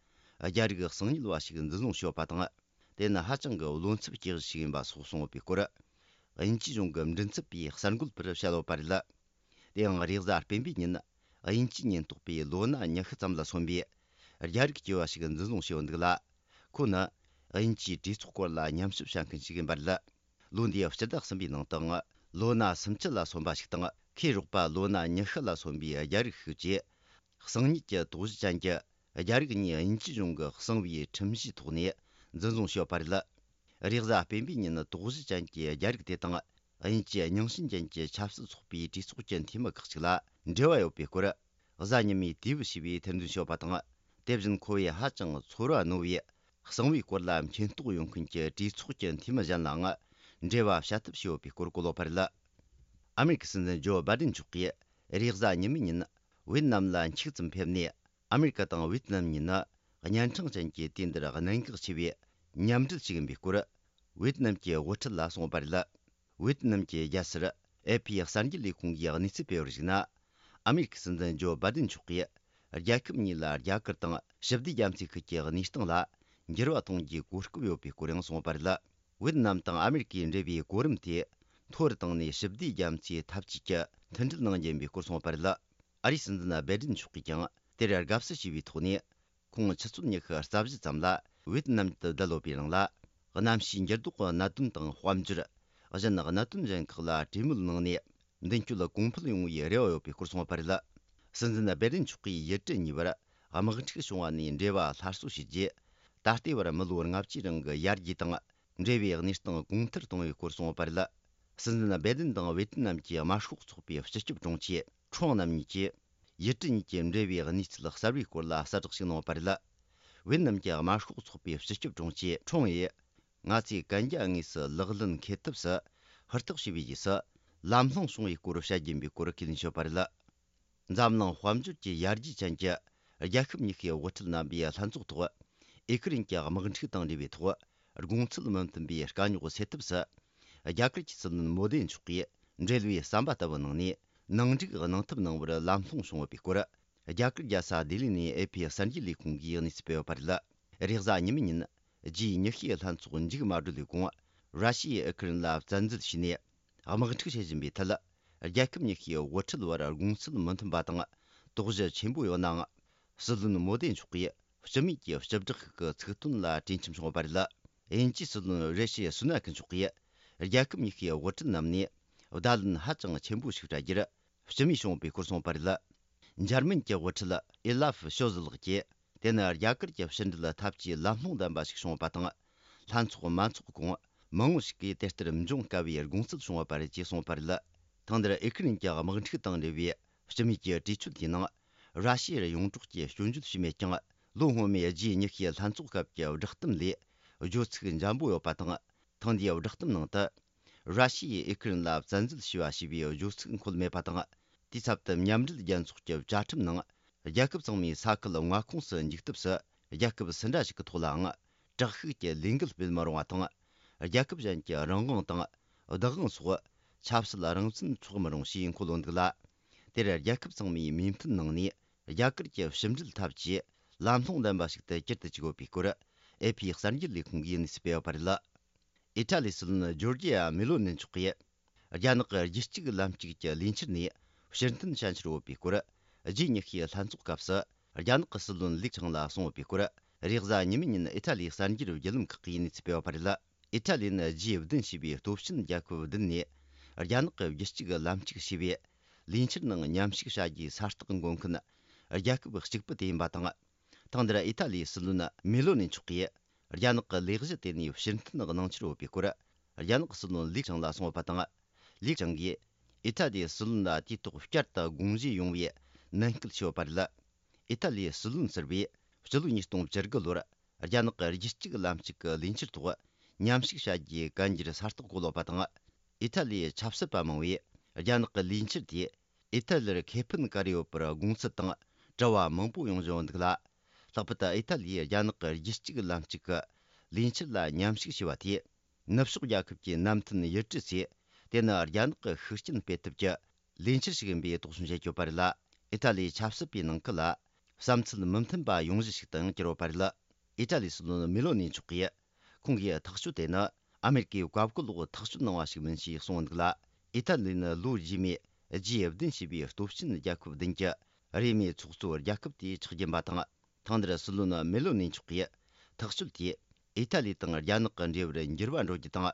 རྒྱ་རིགས་གསང་ཉུལ་བ་ཞིག་འཛིན་བཟུང་བྱས་ཡོད་པ་དང་། དེ་ནི་ཧ་ཅང་གི་བློ་འཚབ་སྐྱེ་གཞི་ཞིག་ཡིན་པ་སོགས་གསུངས་ཡོད་པའི་སྐོར། དབྱིན་ཇིའི་གཞུང་གི་མགྲིན་ཚབ་པས་གསར་འགོད་པར་བཤད་ཡོད་པ་རེད། དེ་ཡང་རེས་གཟའ་སྤེན་པའི་ཉིན། དབྱིན་ཇིའི་ཉེན་རྟོག་པས་ལོ་ན་ཉི་ཤུ་ཙམ་ལ་སོན་པའི་རྒྱ་རིགས་སྐྱེས་པ་ཞིག་འཛིན་བཟུང་བྱས་ཡོད་འདུག་ལ། ཁོ་ནི་དབྱིན་ཇིའི་གྲོས་ཚོགས་སྐོར་ལ་ཉམས་ཞིབ་བྱ་མཁན་ཞིག་ཡིན་པ་རེད། ལོ་འདིའི་སྤྱི་ཟླ་གསུམ་པའི་ནང་དུའང་ལོ་ན་སུམ་ཅུ་ལ་སོན་པ་ཞིག་དང་། ཁོའི་རོགས་པ་ལོ་ན་ཉི་ཤུ་ལ་སོན་པའི་རྒྱ་རིགས་ཤིག་བཅས། གསང་ཉུལ་གྱི་དོགས་གཞི་ཅན་གྱི་རྒྱ་རིགས་གཉིས་དབྱིན་ཇིའི་གཞུང་གི་གསང་བའི་ཁྲིམས་གཞིའི་ཐོག་ནས་འཛིན་བཟུང་བྱས་ཡོད་པ་རེད། རེས་གཟའ་སྤེན་པའི་ཉིན་དོགས་གཞི་ཅན་གྱི་རྒྱ་རིགས་དེ་དང་། དབྱིན་ཇིའི་རྙིང་ཞེན་ཅན་གྱི་ཆབ་སྲིད་ཚོགས་པའི་གྲོས་ཚོགས་ཀྱི་འཐུས་མི་ཁག་ཅིག་ལ་འབྲེལ་བ་ཡོད་པའི་སྐོར། གཟའ་ཉི་མའི་དུས་བབ་ཞེས་པས་ཐེར་འདོན་བྱས་ཡོད་པ་དང་། དེ་བཞིན་ཁོ་བོས་ཧ་ཅང་ཚོར་བ་རྣོ་བའི་གསང་བའི་སྐོར་ལ་མཁྱེན་རྟོགས་ཡོད་མཁན་གྱི་གྲོས་ཚོགས་ཀྱི་འཐུས་མི་གཞན་ལའང་འབྲེལ་བ་བྱ་ཐབས་བྱས་ཡོད་པའི་སྐོར་བཀོད་ཡོད་པ་རེད། ཨ་མེ་རི་ཁའི་སྲིད་འཛིན་ཇོ་བྷའི་ཌེན་མཆོག་གིས་རེས་གཟའ་ཉི་མའི་ཉིན་ཝེ་ཏི་ནམ་ལ་འཁྱུག་ཙམ་ཕེབས་ནས། ཨ་མེ་རི་ཀ་དང་ཝེ་ཏི་ནམ་གཉིས་ནི་གཉན་འཕྲང་ཅན་གྱི་དུས་འདིར་གནད་འགག་ཆེ་བའི་མཉམ་འབྲེལ་ཞིག་ཡིན་པའི་སྐོར། ཝེ་ཏི་ནམ་གྱི་དབུ་ཁྲིད་ལ་གསུངས་པ་རེད། ཝེ་ཏི་ནམ་གྱི་རྒྱལ་སར་ཨེ་ཕི་གསར་འགྱུར་ལས་ཁུངས་ཀྱིས་གནས་ཚུལ་སྤེལ་བར་གཞིགས་ན། ཨ་མེ་རི་ཀའི་སྲིད་འཛིན་ཇོ་བྷའི་ཏིན་མཆོག་གིས་རྒྱལ་ཁབ་གཉིས་ལ་རྒྱ་གར་དང་ཞི་བདེ་རྒྱ་མཚོའི་ཁུལ་གྱི་གནས་སྟངས་ལ་འགྱུར་བ་གཏོང་རྒྱུའི་གོ་སྐབས་ཡོད་པའི་སྐོར་ཡང་གསུངས་པ་རེད། ཝེ་ཏི་ནམ་དང་ཨ་མེ་རི་ཀའི་འབྲེལ་བའི་གོ་རིམ་དེ་མཐོ་རུ་བཏང་ནས་ཞི་བདེ་རྒྱ་མཚོའི་འཐབ་ཇུས་ཀྱི་མཐུན་སྒྲིལ་གནང་རྒྱུ་ཡིན་པའི་སྐོར་གསུངས་པ་རེད། ཨ་རིའི་སྲིད་འཛིན་བྷའི་ཏིན་མཆོག་གིས་ཀྱང་དེར་དགའ་བསུ་ཞུས་པའི་ཐོག་ནས། ཁོང་ཆུ་ཚོད་ཉི་ཤུ་རྩ་བཞི་ཙམ་ལ་ཝེ་ཏི་ནམ་དུ་བསྡད་ཡོད་པའི་རིང་ལ། གནམ་གཤིས་འགྱུར་ལྡོག་གི་གནད་དོན་དང་དཔལ་འབྱོར། གཞན་གནད་དོན་གཞན་ཁག་ལ་གྲོས་མོལ་གནང་ནས། མདུན་སྐྱོད་གོང་འཕེལ་ཡོང་བའི་རེ་བ་ཡོད་པའི་སྐོར་གསུངས་པ་རེད། སྲིད་འཛིན་བྷའི་ཏིན་མཆོག་གིས་ཡུལ་གྲུ་གཉིས་བར་དམག་འཁྲུག་བྱུང་བ་ནས་འབྲེལ་བ་སླར་གསོ་བྱས་རྗེས། ད་ལྟའི་བར་མི་ལོ་ལྔ་བཅུའི་རིང་གི་ཡར་རྒྱས་དང་། འབྲེལ་བའི་གནས་སྟངས་གོང་མཐོར་གཏོང་བའི་སྐོར་གསུངས་པ་རེད། སྲིད་འཛིན་བྷའི་ཏིན་དང་ཝེ་ཏི་ནམ་གྱི་དམར་ཤོག་ཚོགས་པའི་སྤྱི་ཁྱབ་དྲུང་ཆེ་ཁྲོང་རྣམ་གཉིས་ཀྱིས། ཡུལ་གྲུ་གཉིས་ཀྱི་འབྲེལ་བའི་གནས་ཚུལ་གསར་བའི་སྐོར་ལ་གསལ་བསྒྲགས་ཤིག་གནང་བ་རེད། ཝེ་ཏི་ནམ་གྱི་དམར་ཤོག་ཚོགས་པའི་སྤྱི་ཁྱབ་དྲུང་ཆེ་ཁྲོང་ཡིས། ང་ཚོས་གན་རྒྱ་དངོས་སུ་ལག་ལེན་འཁེལ་ཐབས་སུ་ཧུར་ཐག་བྱས་པའི་རྗེས་སུ། ལམ་ལྷོང་བྱུང་བའི་སྐོར་བཤད་རྒྱུ་ཡིན་པའི་སྐོར་ཁས་ལེན་བྱས་པ་རེད། འཛམ་གླིང་དཔལ་འབྱོར་གྱི་ཡར་རྒྱས་ཅན་གྱི་རྒྱལ་ཁབ་གཉིས་ཀའི་དབུ་ཁྲིད་རྣམ་པའི་ལྷན་ཚོགས་ཐོག་ཨི་ཁི་རན་གྱི་དམག་འཁྲུག་དང་འབྲེལ་བའི་ཐོག་དགོངས་ཚུལ་མི་མཐུན་པའི་དཀའ་རྙོག་སེལ་ཐབས་སུ། རྒྱ་གར་གྱི་སྲིད་བློན་མོ་དེ་མཆོག་གིས་འབྲེལ་བའི་ཟམ་པ་ལྟ་བུ་གནང་ནས། ནང་འགྲིག་གནང་ཐབས་གནང་བར་ལམ་ལྷོང་བྱུང་ཡོད་པའི་སྐོར། རྒྱ་གར་རྒྱལ་ས་ལྡི་ལི་ནས་ཨེ་ཕི་གསར་འགྱུར་ལས་ཁུངས་ཀྱིས་གནས་ཚུལ་སྤེལ་ཡོད་པ་རེད། རེས་གཟའ་ཉི་མའི་ཉིན། ཇི་ཉི་ཤུའི་ལྷན་ཚོགས་མཇུག་མ་སྒྲིལ་བའི་གོང་། ར་ཤི་ཡས་ཨུ་ཁུ་རན་ལ་བཙན་འཛུལ་བྱས་ནས། དམག་འཁྲུག་བྱེད་བཞིན་པའི་ཐད། རྒྱལ་ཁབ་གཉིས་ཀའི་དབུ་ཁྲིད་བར་དགོངས་ཚུལ་མི་མཐུན་པ་དང་། དོགས་གཞི་ཆེན་པོ་ཡོད་ནའང་། སྲིད་བློན་མོ་དེ་མཆོག་གིས་སྤྱི་མོས་ཀྱི་སྤྱི་བསྒྲགས་ཤིག་གི་ཚིག་དོན་ལ་གྲོས་འཆམ་བྱུང་བ་རེད། དབྱིན་ཇིའི་སྲིད་བློན་རེ་ཤི་སུ་ན་ཁི་མཆོག་གིས། རྒྱལ་ཁབ་གཉིས་ཀའི་དབུ་ཁྲིད་རྣམས་ནས། བརྡ་ལན་ཧ་ཅང་ཆེན་པོ་ཞིག་སྤྲད་རྒྱུར། སྤྱི་མོས་བྱུང་བའི་སྐོར་གསུངས་པ་རེད། འཇར་མན་གྱི་དབུ་ཁྲིད་ཨི་ལབ་ཤོ་ཟི་ལགས་ཀྱིས། དེ་ནི་རྒྱ་གར་གྱི་ཕྱི་འབྲེལ་འཐབ་ཇུས་ལམ་ལྷོང་ལྡན་པ་ཞིག་བྱུང་བ་དང་། ལྷན་ཚོགས་མ་འཚོགས་གོང་མང་བོ་ཞིག་གིས་དེ་ལྟར་འབྱུང་དཀའ་བའི་དགོངས་ཚུལ་བྱུང་བ་རེད་ཅེས་གསུངས་པ་རེད། ཐེངས་འདིར་ཨི་ཁི་རན་གྱི་དམག་འཁྲུག་དང་འབྲེལ་བའི་སྤྱི་མོས་ཀྱི་གྲོས་ཆོད་དེའི་ནང་། ར་ཤི་ཡར་ཡོངས་གྲོགས་ཀྱི་སྐྱོན་བརྗོད་བྱས་མེད་ཀྱང་། ལོ་སྔོན་མའི་ཇི་ཉི་ཤུའི་ལྷན་ཚོགས་སྐབས་ཀྱི་བསྒྲགས་གཏམ་ལས་བརྗོད་ཚིག་འཇམ་པོ་ཡོད་པ་དང་། ཐེངས་འདིའི་བསྒྲགས་གཏམ་ནང་དུ། ར་ཤི་ཡས་ཨི་ཁི་རན་ལ་བཙན་འཛུལ་བྱས་པ་ཞེས་པའི་བརྗོད་ཚིག་འཁོད་མེད་པ་དང་། དེའི་ཚབ་ཏུ་མཉམ་འབྲེལ་རྒྱལ་ཚོགས་ཀྱི་བཅའ་ཁྲིམས་ནང་། རྒྱལ་ཁབ་ཚང་མས་ས་ཁུལ་མངའ་ཁོངས་སུ་འཇུག་ཐབས་སུ། རྒྱལ་ཁབ་སུ་འདྲ་ཞིག་གི་ཐོག་ལའང་། དྲག་ཤུགས་ཀྱི་ལས་འགུལ་སྤེལ་མི་རུང་བ་དང་། རྒྱལ་ཁབ་གཞན་གྱི་རང་དབང་དང་། བདག་དབང་སོགས། ཆབ་སྲིད་རང་བཙན་འཕྲོག་མི་རུང་ཞེས་འཁོད་ཡོད་འདུག་ལ། དེར་རྒྱལ་ཁབ་ཚང་མས་མོས་མཐུན་གནང་ནས། རྒྱ་གར་གྱི་ཕྱི་འབྲེལ་འཐབ་ཇུས་ལམ་ལྷོང་ལྡན་པ་ཞིག་ཏུ་གྱུར་དུ་བཅུག་ཡོད་པའི་སྐོར། ཨེ་ཕི་གསར་འགྱུར་ལས་ཁུངས་ཀྱིས་གནས་ཚུལ་སྤེལ་ཡོད་པ་རེད། ཨི་ཊ་ལིའི་སྲིད་བློན་ཇོར་ཇི་ཡ་མེ་ལོ་ནི་མཆོག་གིས། རྒྱ་ནག་གི་རྒྱུད་གཅིག་ལམ་གཅིག་གི་ལས་འཆར་ནས་ཕྱིར་འཐེན་བྱ་འཆར་ཡོད་པའི་སྐོར། ཇི་ཉི་ཤུའི་ལྷན་ཚོགས་སྐབས་སུ། རྒྱ་ནག་གི་སྲིད་བློན་ལིག་ཆང་ལ་གསུངས་ཡོད་པའི་སྐོར། རེས་གཟའ་ཉི་མའི་ཉིན་ཨི་ཊ་ལིའི་གསར་འགྱུར་བརྒྱུད་ལམ་ཁག་གིས་གནས་ཚུལ་སྤེལ་བ་རེད། ཨི་ཊ་ལིས་ནི་ཇི་བདུན་ཞེས་པའི་སྟོབས་ཆེན་རྒྱལ་ཁབ་བདུན་ནས། རྒྱ་ནག་གི་རྒྱུད་གཅིག་ལམ་གཅིག་ཞེས་པའི་ལས་འཆར་ནང་མཉམ་ཞུགས་བྱ་རྒྱུའི་ས་རྟགས་འགོད་མཁན་རྒྱལ་ཁབ་གཅིག་པུ་དེ་ཡིན་པ་དང་། ཐེངས་འདིར་ཨི་ཊ་ལིའི་སྲིད་བློན་མེ་ལོ་ནི་མཆོག་གིས། རྒྱ་ནག་གི་ལས་གཞི་དེ་ནས་ཕྱིར་འཐེན་གནང་འཆར་ཡོད་པའི་སྐོར། རྒྱ་ནག་གི་སྲིད་བློན་ལིག་ཆང་ལ་གསུངས་ཡོད་པ་དང་། ལིག་ཆང་གིས་ཨི་ཊ་ལིའི་སྲིད་བློན་ལ་དུས་ཐོག་བསྐྱར་དུ་དགོངས་བཞེས་ཡོང་བའི་ནན་སྐུལ་བྱས་ཡོད་པ་རེད། ཨི་ཊ་ལིའི་སྲིད་བློན་ཟུར་པས་སྤྱི་ལོ་ཉིས་སྟོང་བཅུ་དགུ་ལོར་རྒྱ་ནག་གི་རྒྱུད་གཅིག་ལམ་གཅིག་གི་ལས་འཆར་ཐོག་མཉམ་ཞུགས་བྱ་རྒྱུའི་གན་རྒྱར་ས་རྟགས་བཀོད་ཡོད་པ་དང་། ཨི་ཊ་ལིའི་ཆབ་སྲིད་པ་མང་བོས་རྒྱ་ནག་གི་ལས་འཆར་དེས་ཨི་ཊ་ལིར་ཁེ་ཕན་ག་རེ་ཡོད་པར་དགོངས་ཚུལ་དང་དྲི་བ་མང་པོ་ཡོང་བཞིན་འདུག་ལ། ལྷག་པར་དུ་ཨི་ཊ་ལིས་རྒྱ་ནག་གི་རྒྱུད་གཅིག་ལམ་གཅིག་གི་ལས་འཆར་ལ་མཉམ་ཞུགས་བྱས་པ་དེས། ནུབ་ཕྱོགས་རྒྱལ་ཁབ་ཀྱི་མནའ་མཐུན་ཡུལ་གྲུ་ཚོས་དེ་ནི་རྒྱ་ནག་གི་ཤུགས་རྐྱེན་སྤེལ་ཐབས་ཀྱི་ལས་འཆར་ཞིག་ཡིན་པའི་དོགས་ཟོན་བྱེད་ཀྱི་ཡོད་པ་རེད་ལ། ཨི་ཊ་ལིའི་ཆབ་སྲིད་པའི་ནང་ཁུལ་ལ་བསམ་ཚུལ་མི་མཐུན་པ་ཡོང་གཞི་ཞིག་ཏུ་ཡང་གྱུར་ཡོད་པ་རེད། ཨི་ཏྲ་ལིའི་སྲིད་བློན་མེ་ལོ་ནི་མཆོག་གིས། ཁོང་གིས་ཐག་གཅོད་དེ་ནི་ཨ་མེ་རི་ཀས་བཀའ་བཀོད་འོག་ཐག་གཅོད་གནང་བ་ཞིག་མིན་ཞེས་གསུངས་འདུག་ལ། ཨི་ཏཱ་ལི་ནི་ལོ་རྗེས་མའི་རྗེས་བདུན་ཞེས་པའི་སྟོབས་ཆེན་རྒྱལ་ཁབ་བདུན་གྱི་རེས་མོས་ཚོགས་གཙོ་རྒྱལ་ཁབ་དེའི་ཆགས་རྒྱུ་ཡིན་པ་དང་། ཐེངས་འདིར་སྲིད་བློན་མེ་ལོ་ནི་མཆོག་གིས་ཐག་གཅོད་དེས་ཨི་ཏཱ་ལི་དང་རྒྱ་ནག་གི་འབྲེལ་བར་འགྱུར་བ་འགྲོ་རྒྱུ་དང་།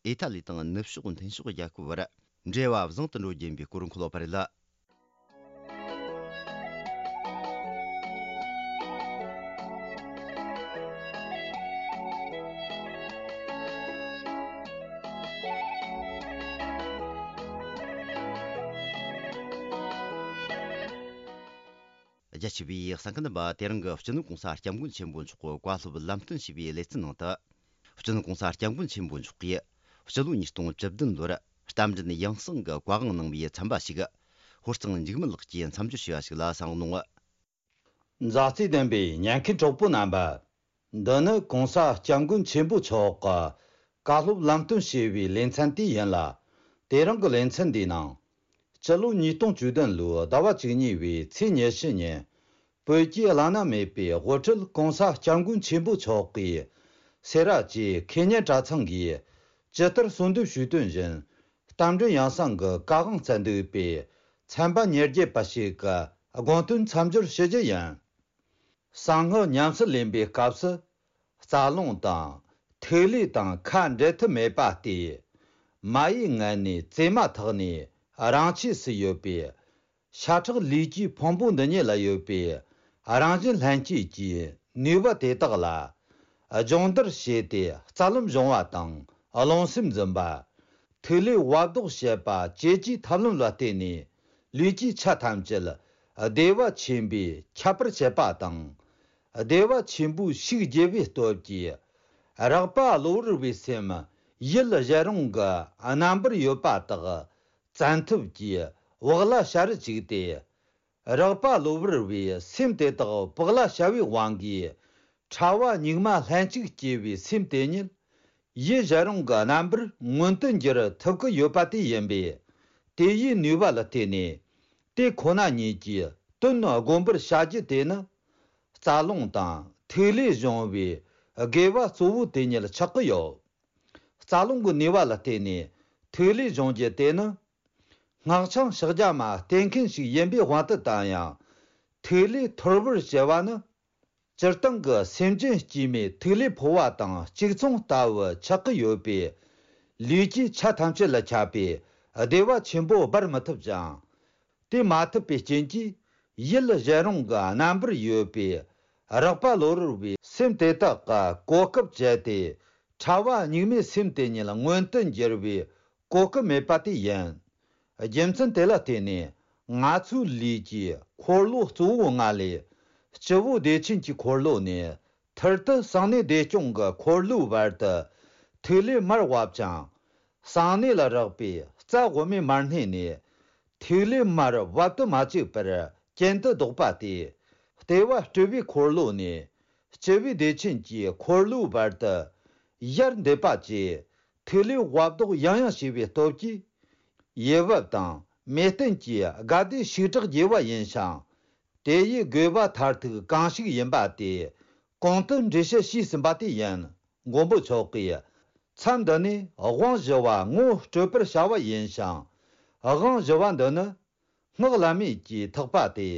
ཨི་ཏཱ་ལི་དང་ནུབ་ཕྱོགས་མཐུན་ཕྱོགས་རྒྱལ་ཁབ་བར་འབྲེལ་བ་བཟང་དུ་འགྲོ་རྒྱུ་ཡིན་པའི་སྐོར་འཁོད་ཡོད་པ་རེད། རྒྱ་ཆེ་བའི་གསན་མཁན་རྣམ་པ། དེ་རིང་གི་སྤྱི་ནོར་གོང་ས་སྐྱབས་མགོན་ཆེན་པོ་མཆོག་གི་བཀའ་སློབ་ལམ་སྟོན་ཞེས་པའི་ལེ་ཚན་ནང་དུ། སྤྱི་ནོར་གོང་ས་སྐྱབས་མགོན་ཆེན་པོ་མཆོག་གིས་སྤྱི་ལོ་ཉིས་སྟོང་བཅུ་བདུན་ལོར་རྟ་མགྲིན་ཡང་གསང་གི་བཀའ་དབང་གནང་བའི་ཚན་པ་ཞིག་ཧོར་གཙང་འཇིགས་མེད་ལགས་ཀྱིས་མཚམས་སྦྱོར་བྱས་པ་ཞིག་ལ་གསན་རོགས་གནང་། མཛའ་བརྩེ་ལྡན་པའི་ཉན་མཁན་གྲོགས་པོ་རྣམ་པ། འདི་ནི་གོང་ས་སྐྱབས་མགོན་ཆེན་པོ་མཆོག་གི་བཀའ་སློབ་ལམ་སྟོན་ཞེས་པའི་ལེ་ཚན་དེ་ཡིན་ལ། དེ་རིང་གི་ལེ་ཚན་འདིའི་ནང་། སྤྱི་ལོ་ཉིས་སྟོང་བཅུ་བདུན་ལོའི་ཟླ་བ་བཅུ་གཉིས་པའི་ཚེས་ཉེར་བཞི་ཉིན། བོད་ཀྱི་བླ་ན་མེད་པའི་དབུ་ཁྲིད་གོང་ས་སྐྱབས་མགོན་ཆེན་པོ་མཆོག་གིས། སེ་ར་བཅས་ཁེ་ཉན་གྲྭ་ཚང་གིས་ཇི་ལྟར་གསོལ་འདེབས་ཞུས་དོན་བཞིན། རྟ་མགྲིན་ཡང་གསང་གི་བཀའ་དབང་སྩལ་འདུག་པའི་ཚན་པ་ཉེར་བརྒྱད་པ་ཞིག་གི་དགོངས་དོན་མཚམས་སྦྱོར་ཞུ་རྒྱུ་ཡིན། གསང་སྔགས་ཉམས་སུ་ལེན་པའི་སྐབས་སུ། རྩ་རླུང་དང་ཐིག་ལེ་དང་ཁ་འབྲལ་ཐབས་མེད་པ་སྟེ། མ་ཡི་མངལ་ནས་བཙས་མ་ཐག་ནས་རང་ཆས་སུ་ཡོད་པའི་ཤ་ཁྲག་ལུས་ཀྱི་ཕུང་པོ་འདི་ཉིད་ལ་ཡོད་པའི་རང་བཞིན་ལྷན་སྐྱེས་ཀྱི་ནུས་པ་དེ་དག་ལ་སྦྱོང་བརྡར་བྱས་ཏེ། རྩ་རླུང་སྦྱོང་བ་དང་རླུང་སེམས་འཛིན་པ། ཐིག་ལེ་བབ་ལྡོག་བྱེད་པ་བཅས་ཀྱི་ཐབས་ལམ་ལ་བརྟེན་ནས། ལུས་ཀྱི་ཆ་ཐམས་ཅད་བདེ་བ་ཆེན་པོས་ཁྱབ་པར་བྱེད་པ་དང་། བདེ་བ་ཆེན་པོའི་ཤུགས་རྒྱས་པའི་སྟོབས་ཀྱིས། རེག་པ་གློ་བུར་བའི་སེམས་ཡུལ་གཞན་རུང་གི་རྣམ་པར་ཡོད་པ་དག་བཙན་ཐབས་ཀྱིས་བག་ལ་ཞ་རུ་བཅུག་སྟེ། རེག་པ་གློ་བུར་བའི་སེམས་དེ་དག་བག་ལ་ཞ་བའི་དབང་གིས། ཕྲ་བ་སྙིགས་མ་ལྷན་ཅིག་སྐྱེས་པའི་སེམས་དེ་ཉིད། ཡུལ་གཞན་རུང་གི་རྣམ་པར་མངོན་དུ་འགྱུར་ཐུབ་ཀྱི་ཡོད་པ་དེ་ཡིན་པས། དེ་ཡི་ནུས་པ་ལ་བརྟེན་ནས། དེ་ཁོ་ན་ཉིད་ཀྱི་དོན་བསྒོམ་པར་བྱ་རྒྱུ་དེ་ནི། རྩ་རླུང་དང་ཐིག་ལེ་སྦྱོང་བའི་དགེ་བ་གཙོ་བོ་དེ་ཉིད་ཆགས་ཀྱི་ཡོད། རྩ་རླུང་གི་ནུས་པ་ལ་བརྟེན་ནས་ཐིག་ལེ་སྦྱོང་རྒྱུ་དེ་ནི། སྔགས་འཆང་ཕྱག་རྒྱ་མ་བསྟེན་མཁན་ཞིག་ཡིན་པའི་དབང་དུ་བཏང་ཡང་། ཐིག་ལེ་ཐོར་བུར་བྱེད་པ་ནི། སྤྱིར་བཏང་གི་སེམས་ཅན་སྐྱེ་མེད་ཐིག་ལེ་ཕོ་བ་དང་གཅིག་མཚུངས་ལྟ་བུ་ཆགས་ཀྱི་ཡོད་པས། ལུས་ཀྱི་ཆ་ཐམས་ཅད་ལ་ཁྱབ་པའི་བདེ་བ་ཆེན་པོ་སྦར་མི་ཐུབ་ཅིང་། དེ་མ་ཐུབ་པའི་རྐྱེན་གྱིས། ཡུལ་གཞན་རུང་གི་རྣམ་པར་ཡོད་པའི་རེག་པ་གློ་བུར་བའི་སེམས་དེ་དག་གི་གོ་སྐབས་སྤྱད་དེ། ཕྲ་བ་སྙིགས་མའི་སེམས་དེ་ཉིད་མངོན་དུ་འགྱུར་བའི་གོ་སྐབས་མེད་པ་དེ་ཡིན། རྒྱུ་མཚན་དེ་ལ་བརྟེན་ནས། ང་ཚོའི་ལུས་ཀྱི་འཁོར་ལོ་གཙོ་བོ་ལྔ་ལས། སྤྱི་བོ་བདེ་ཆེན་གྱི་འཁོར་ལོ་ནས། ཐུར་དུ་གསང་གནས་བདེ་སྐྱོང་གི་འཁོར་ལོའི་བར་དུ་ཐིག་ལེ་མར་བབ་ཅིང་། གསང་གནས་ལ་རེག་པའི་རྩ་དབུ་མའི་མར་སྣེ་ནས་ཐིག་ལེ་མར་བབ་ཏུ་མ་བཅུག་པར་གྱེན་དུ་ལྡོག་པ་སྟེ། ལྟེ་བ་སྤྲུལ་པའི་འཁོར་ལོ་ནས་སྤྱི་བོའི་བདེ་ཆེན་གྱི་འཁོར་ལོའི་བར་དུ་ཡར་འདེད་པ་བཅས། ཐིག་ལེ་བབ་ལྡོག་ཡང་ཡང་བྱས་པའི་སྟོབས་ཀྱིས། ཡུལ་བབ་དང་མེ་སྟེན་གྱི་དགའ་བདེ་ཞིག་དྲག་རྒྱས་པ་ཡིན་ཞིང་། དེ་ཡི་དགོས་པ་མཐར་ཐུག་གང་ཞིག་ཡིན་པ་དེ་གོང་དུ་འགྲེལ་བཤད་ཞུས་ཟིན་པ་དེ་ཡིན། མགོན་པོ་མཆོག་གིས་མཚམས་འདི་ནས་དབང་བཞི་བ་ངོ་སྤྲོད་པར་བྱ་བ་ཡིན་ཞིང་། དབང་བཞི་བ་འདི་ནི་སྔགས་བླ་མེད་ཀྱི་ཐེག་པ་སྟེ།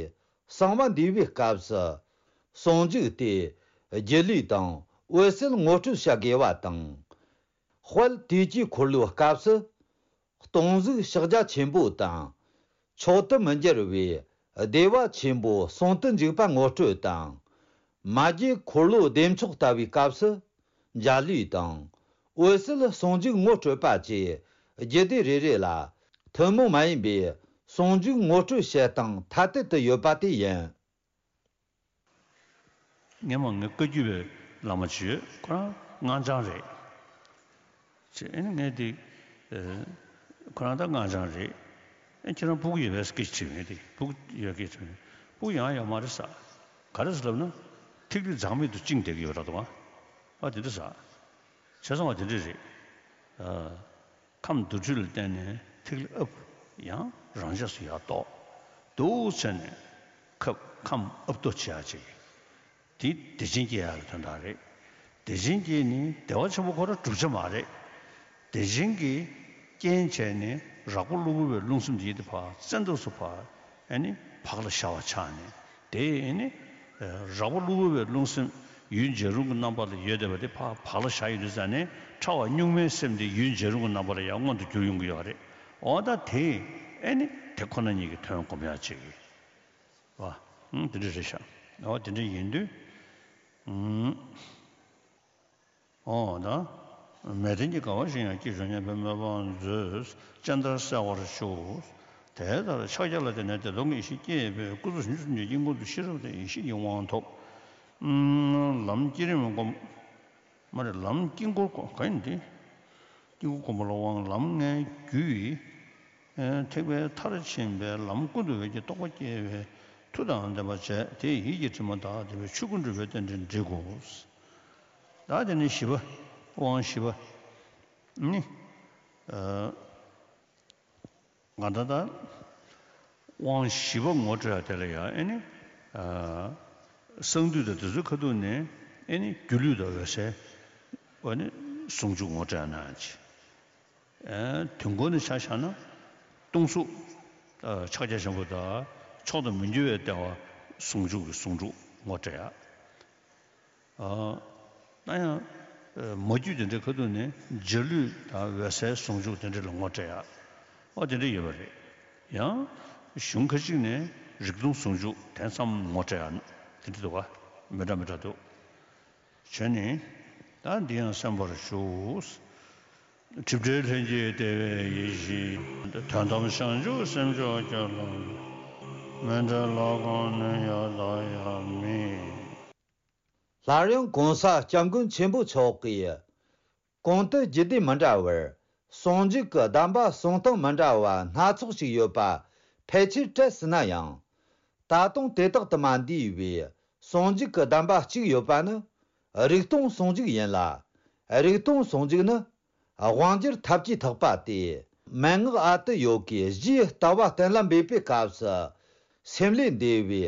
གསང་བ་འདུས་པའི་སྐབས་སུ་ཟུང་འཇུག་སྟེ། སྒྱིད་ལུས་དང་འོད་གསལ་ངོ་སྤྲོད་བྱ་དགོས་པ་དང་། དཔལ་དུས་ཀྱི་འཁོར་ལོའི་སྐབས་སུ། སྟོང་གཟུགས་ཕྱག་རྒྱ་ཆེན་པོ་དང་། མཆོག་ཏུ་མི་འགྱུར་བའི་བདེ་བ་ཆེན་པོ་ཟུང་དུ་འཇུག་པ་ངོ་སྤྲོད་དང་། མ་རྒྱུད་འཁོར་ལོ་བདེ་མཆོག་ལྟ་བུའི་སྐབས་སུ། འཇའ་ལུས་དང་། འོད་གསལ་ཟུང་འཇུག་ངོ་སྤྲོད་པ་བཅས་རྒྱུད་སྡེ་རེ་རེ་ལ་ཐུན་མོང་མ་ཡིན་པའི་ཟུང་འཇུག་ངོ་སྤྲོད་བྱེད་སྟངས་ཐ་དད་དུ་ཡོད་པ་དེ་ཡིན། སྔོན་མ་ངའི་བཀའ་བརྒྱུད་པའི་བླ་མ་ཅིག་ཡོད། ཁོ་རང་སྔགས་འཆང་རེད། ཅེས་ཨེ་ནི་ངས་དེ། ཨེ། ཁོ་རང་ད་སྔགས་འཆང་རེད། ཨེ་ཁྱེད་རང་ཕྲུ་གུ་ཡོད་པས་སྐད་ཆ་དྲིས་ངས་དེ་ཕྲུ་གུ་ཡོད་སྐད་ཆ་དྲིས་ངས་ཕྲུ་གུ་ཡང་ཡོད་མ་རེད་ཟེར། ག་རེ་ཟེར་ལབ་ན། ཐིག་ལེ་འཛག་མེད་དུ་བཅིངས་བསྡད་ཀྱི་ཡོད་རེད་དོ། ཨ་དེ་འདྲ་ཟེར། བྱས་ཙང་བ་དེ་འདྲ་རེད། ཨ། ཁམས་དུར་ཁྲོད་ལ་བརྟེན་ནས་ཐིག་ལེ་ཨབ། ཡང་རང་ཆས་སུ་ཡར་ལྡོག་འདུག་བྱས་ནས་ཁབ་ཁམས་ཨབ་ཏོ་བྱེད་ཡ་ཅིག་དེ་བདེ་ཆེན་སྐྱེ་ཡག་གི་དོན་དག་རེད། བདེ་ཆེན་སྐྱེས་ནས་བདེ་བ་ཆེན་པོ་ཁོ་རང་གྲུབ་ཆ་མ་རེད། བདེ་ཆེན་གྱི་རྐྱེན་བྱས་ནས་རགས་པ་གློ་བུར་བའི་རླུང་སེམས་དེ་ཡིད་དེ་ཕར་བཙན་ཐབས་སུ་ཕར་ཨ་ནི་བག་ལ་ཞ་བ་ཆགས་ནས་དེ་ཨ་ནི་རགས་པ་གློ་བུར་བའི་རླུང་སེམས་ཡུལ་འཇའ་རིསམོ་གི་རྣམ་པ་ལ་ཡོད་བསྡད་པ་དེ་ཕར་བག་ལ་ཞ་ཡོང་དུས་ཙ་ནས་ཕྲ་བ་གཉུག་མའི་སེམས་དེ་ཡུལ་འཇའ་རིསམོ་གི་རྣམ་པ་ལ་ཡང་མངོན་དུ་གྱུར་ཡོང་གི་ཡོད་རེད། འོ་ད་དེ་ཨ་ནི་དེ་ཁོ་ན་ཉིད་ཀྱི་དོན་སྒོམ་ཡག་ཅིག་གི་བ། ཨང་དེ་འདྲ་རེད་ཤག་འོ་དེ་འདྲ་ཡིན་དུས། ཨང་། འོ་ད། མལ་སྟན་གྱི་དགའ་བ་བཞིན་ཡང་སྐྱེས་བྱུང་སྙམ་པའི་སྨོན་ལམ་མཛོད། སྤྱན་ལྟར་གསལ་བར་ཤོག་དེ་ལྟར་ཕྱག་རྒྱ་ལ་བརྟེན་ནས་བདེ་སྟོང་གི་ཡེ་ཤེས་སྐྱེས་པས་སྐུ་ཚེ་ཕྱོགས་བཅུ་གསུམ་གྱི་དཀྱིལ་འཁོར་དུ་ཤེས་རབ་དང་ཡེ་ཤེས་ཀྱི་དབང་ཐོབ། ལམ་བསྐྱེད་རིམ་སྒོམ། མ་རེད། ལམ་དཀྱིལ་འཁོར་སྒོམ་ག་ཡིན་ཏེ། དཀྱིལ་འཁོར་སྒོམ་པ་ལ་དབང་ལམ་ལྔའི་རྒྱུ་ཡི། ཐེག་པའི་མཐར་ཕྱིན་པའི་ལམ་ཀུན་ཏུ་འོད་ཀྱི་རྟོགས་པ་སྐྱེ་བའི་མཐུ་དང་ལྡན་པ་བྱས་དེ་ཡིད་ཀྱི་དྲི་མ་དག་ལྡན་པའི་ཆོས་སྐུ་འགྲུབ་པའི་རྟེན་འབྲེལ་འགྲིག་གོ། ད་དེ་ནི་བཞི་པ། དབང་བཞི་པ། ནི། ང་ད་ལྟ། དབང་བཞི་པ་ངོ་སྤྲོད་ཡ་དེ་ལ་ཡང་ཨེ་ནི། གསང་འདུས་དང་དེ་ཚོའི་ཁ་ཐུག་ནས་ཨེ་ནི་སྒྱུ་ལུས་དང་འོད་གསལ། ཨེ་ནི་ཟུང་འཇུག་ངོ་སྤྲད་ན་ཅི། དུས་འཁོར་ནས་ཆ་བཞག་ན། སྟོང་གཟུགས། ཕྱག་རྒྱ་ཆེན་པོ་དང་མཆོག་ཏུ་མི་འགྱུར་བའི་ལྟེ་བ་ཟུང་འཇུག་གི་ཟུང་འཇུག་ངོ་སྤྲད་ཡ། ཨ། ད་ཡང་། མ་རྒྱུད་དེ་འདྲའི་ཁ་ཐུག་ནས་འཇའ་ལུས་དང་འོད་གསལ་ཟུང་འཇུག་དེ་འདྲ་ལ་ངོ་སྤྲད་ཡ། ཨོ་དེ་འདྲ་ཡོད་པ་རེད། ཡང་། གཞུང་ཁ་ཅིག་ནས་རིག་སྟོང་ཟུང་འཇུག་དེ་ཙམ་ངོ་སྤྲད་ཡ། དེ་འདྲ་འདུག་ག་མི་འདྲ་མི་འདྲ་འདུག་བྱས་ནས། ད་འདི་ཡང་གསན་པར་ཞུ། སྒྲིབ་བྲལ་ལྷན་སྐྱེས་བདེ་བའི་ཡེ་ཤེས། དོན་དམ་བྱང་ཆུབ་སེམས་མཆོག་སྐྱོབ་ལ། མི་འབྲལ་ལོག་གོམས་ནི་ཡང་དག་ཡང་མེད། སླར་ཡང་གོང་ས་སྐྱབས་མགོན་ཆེན་པོ་མཆོག་གིས། གོང་དུ་རྒྱུད་སྡེ་མི་འདྲ་བར་ཟུང་འཇུག་གི་གདམས་པ་གསུང་སྟངས་མི་འདྲ་བ་སྣ་ཚོགས་ཤིག་ཡོད་པ་ཕལ་ཆེར་བཀྲལ་སྲིད་ན་ཡང་། ད་དུང་དེ་དག་ཏུ་མ་འདུས་པའི་ཟུང་འཇུག་གི་གདམས་པ་གཅིག་ཡོད་པ་ནི་རིག་སྟོང་ཟུང་འཇུག་ཡིན་ལ། རིག་སྟོང་ཟུང་འཇུག་ནི། དབང་སྒྱུར་ཐབས་ཀྱིས་ཐག་པ་སྟེ། མན་ངག་ཨ་ཏི་ཡོ་གའི་རྗེས་ལྟ་བ་གཏན་ལ་འབེབས་པའི་སྐབས་སུ། སེམས་ལས་འདས་པའི་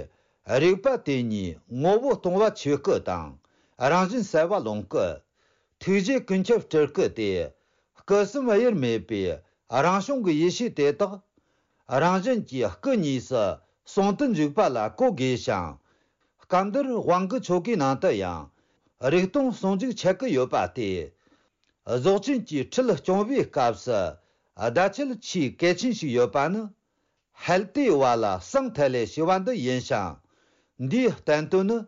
རིག་པ་དེ་ཉིད་ངོ་བོ་སྟོང་པ་ཆོས་སྐུ་དང་། རང་བཞིན་གསལ་བ་ལོངས་སྐུ། ཐུགས་རྗེ་ཀུན་ཁྱབ་སྤྲུལ་སྐུ་སྟེ། སྐུ་གསུམ་དབྱེར་མེད་པའི་རང་བྱུང་གི་ཡེ་ཤེས་དེ་དག་རང་བཞིན་གྱིས་སྐུ་གཉིས་སུ་ཟུང་དུ་འཇུག་པ་ལ་གོ་དགོས་ཤིང་། སྐབས་འདིར་དབང་གི་ཆོ་གའི་ནང་དུ་ཡང་རིག་སྟོང་ཟུང་འཇུག་ཆད་ཀྱི་ཡོད་པ་སྟེ། རྫོགས་ཆེན་གྱི་ཁྲིད་སྐྱོང་བའི་སྐབས་སུ་བརྡ་ཆད་ཆེས་གལ་ཆེན་ཞིག་ཡོད་པ་ནི། ཧལ་ཏེ་བ་ལ་སང་ཐལ་ལེ་ཞེས་པ་འདི་ཡིན་ཞིང་། འདིའི་བསྟན་དོན་ནི།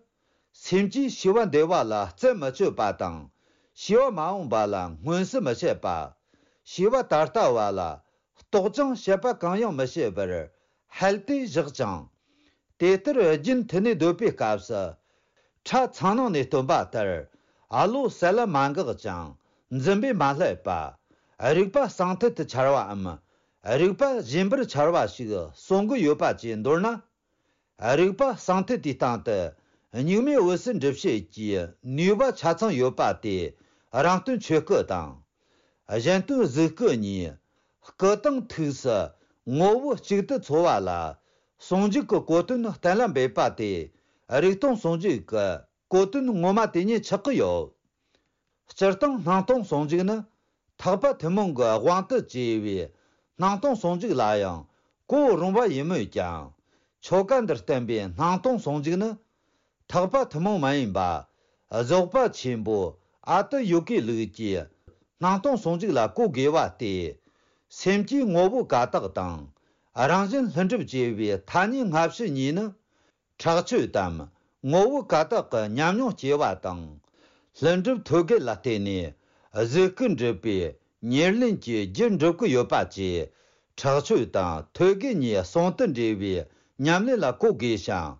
སེམས་ཀྱིས་ཤེས་པ་འདས་པ་ལ་རྩད་མི་གཅོད་པ་དང་། ཤེས་པ་མ་འོངས་པ་ལ་མངོན་གསལ་མི་བྱེད་པ། ཤེས་པ་ད་ལྟ་བ་ལ་རྟོག་ཅིང་བཤད་པ་གང་ཡང་མི་བྱེད་པར་ཧལ་ཏེ་བཞག་ཅིང་། དེ་ལྟར་རྒྱུན་མཐུད་ནས་སྡོད་པའི་སྐབས་སུ། ཁྲ་ཚང་ནང་ནས་སྟོན་པ་ལྟར། ཨ་ལོ་གསལ་ལ་མ་འགགས་ཀྱང་། འཛིན་པས་མ་བསླད་པ། རིག་པ་གསང་ཐལ་དུ་འཆར་བའམ། རིག་པ་གཞན་པར་འཆར་བ་ཞིག་གསུང་གི་ཡོད་པ་བཅས་མདོར་ན། རིག་པ་གསང་ཐལ་དེའི་སྟེང་དུ། གཉུག་མའི་འོད་གསལ་འགྲུབ་བྱེད་ཀྱི་ནུས་པ་ཆ་ཚང་ཡོད་པ་སྟེ། རང་སྟོན་ཆོས་སྐུ་དང་། གཞན་སྟོན་གཟུགས་སྐུ་གཉིས། སྐུ་དང་ཐུགས་སུ་ངོ་བོ་གཅིག་ཏུ་འཚོ་བ་ལ། ཟུང་འཇུག་གི་གོ་དོན་གཏན་ལ་འབེབས་པ་སྟེ། རིག་སྟོང་ཟུང་འཇུག་གི་གོ་དོན་ངོ་མ་དེ་ཉིད་ཆགས་ཀྱི་ཡོད། སྤྱིར་བཏང་སྣང་སྟོང་ཟུང་འཇུག་ནི། ཐེག་པ་ཐུན་མོང་གི་དབང་དུ་བྱས་པའི་སྣང་སྟོང་ཟུང་འཇུག་ལ་ཡང་གོ་རུང་བ་ཡིན་མོད་ཀྱང་། ཆོ་ག་འདིར་བསྟན་པའི་སྣང་སྟོང་ཟུང་འཇུག་ནི། ཐེག་པ་ཐུན་མོང་མ་ཡིན་པ། རྫོགས་པ་ཆེན་པོ་ཨ་ཏི་ཡོ་གའི་ལུགས་ཀྱི་སྣང་སྟོང་ཟུང་འཇུག་ལ་གོ་དགོས་པ་སྟེ། སེམས་ཀྱི་ངོ་བོ་ཀ་དག་དང་། རང་བཞིན་ལྷུན་གྲུབ་ཅེས་པའི་ཐ་སྙད་སྔ་ཕྱི་གཉིས་ནི། ཁྲག་ཆོས་དམ་ངོ་བོ་ཀ་དག་གི་ཉམས་མྱོང་སྐྱེ་བ་དང་། ལྷུན་གྲུབ་ཐོད་རྒལ་ལ་བརྟེན་ནས་གཟུགས་སྐུ་འགྲུབ་པའི་ཉེར་ལེན་གྱི་རྒྱུ་འགྲུབ་ཀྱི་ཡོད་པ་བཅས། ཁྲག་ཆོས་དང་ཐོད་རྒལ་གཉིས་ཟུང་དུ་འབྲེལ་བའི་ཉམས་ལེན་ལ་གོ་དགོས་ཤིང་།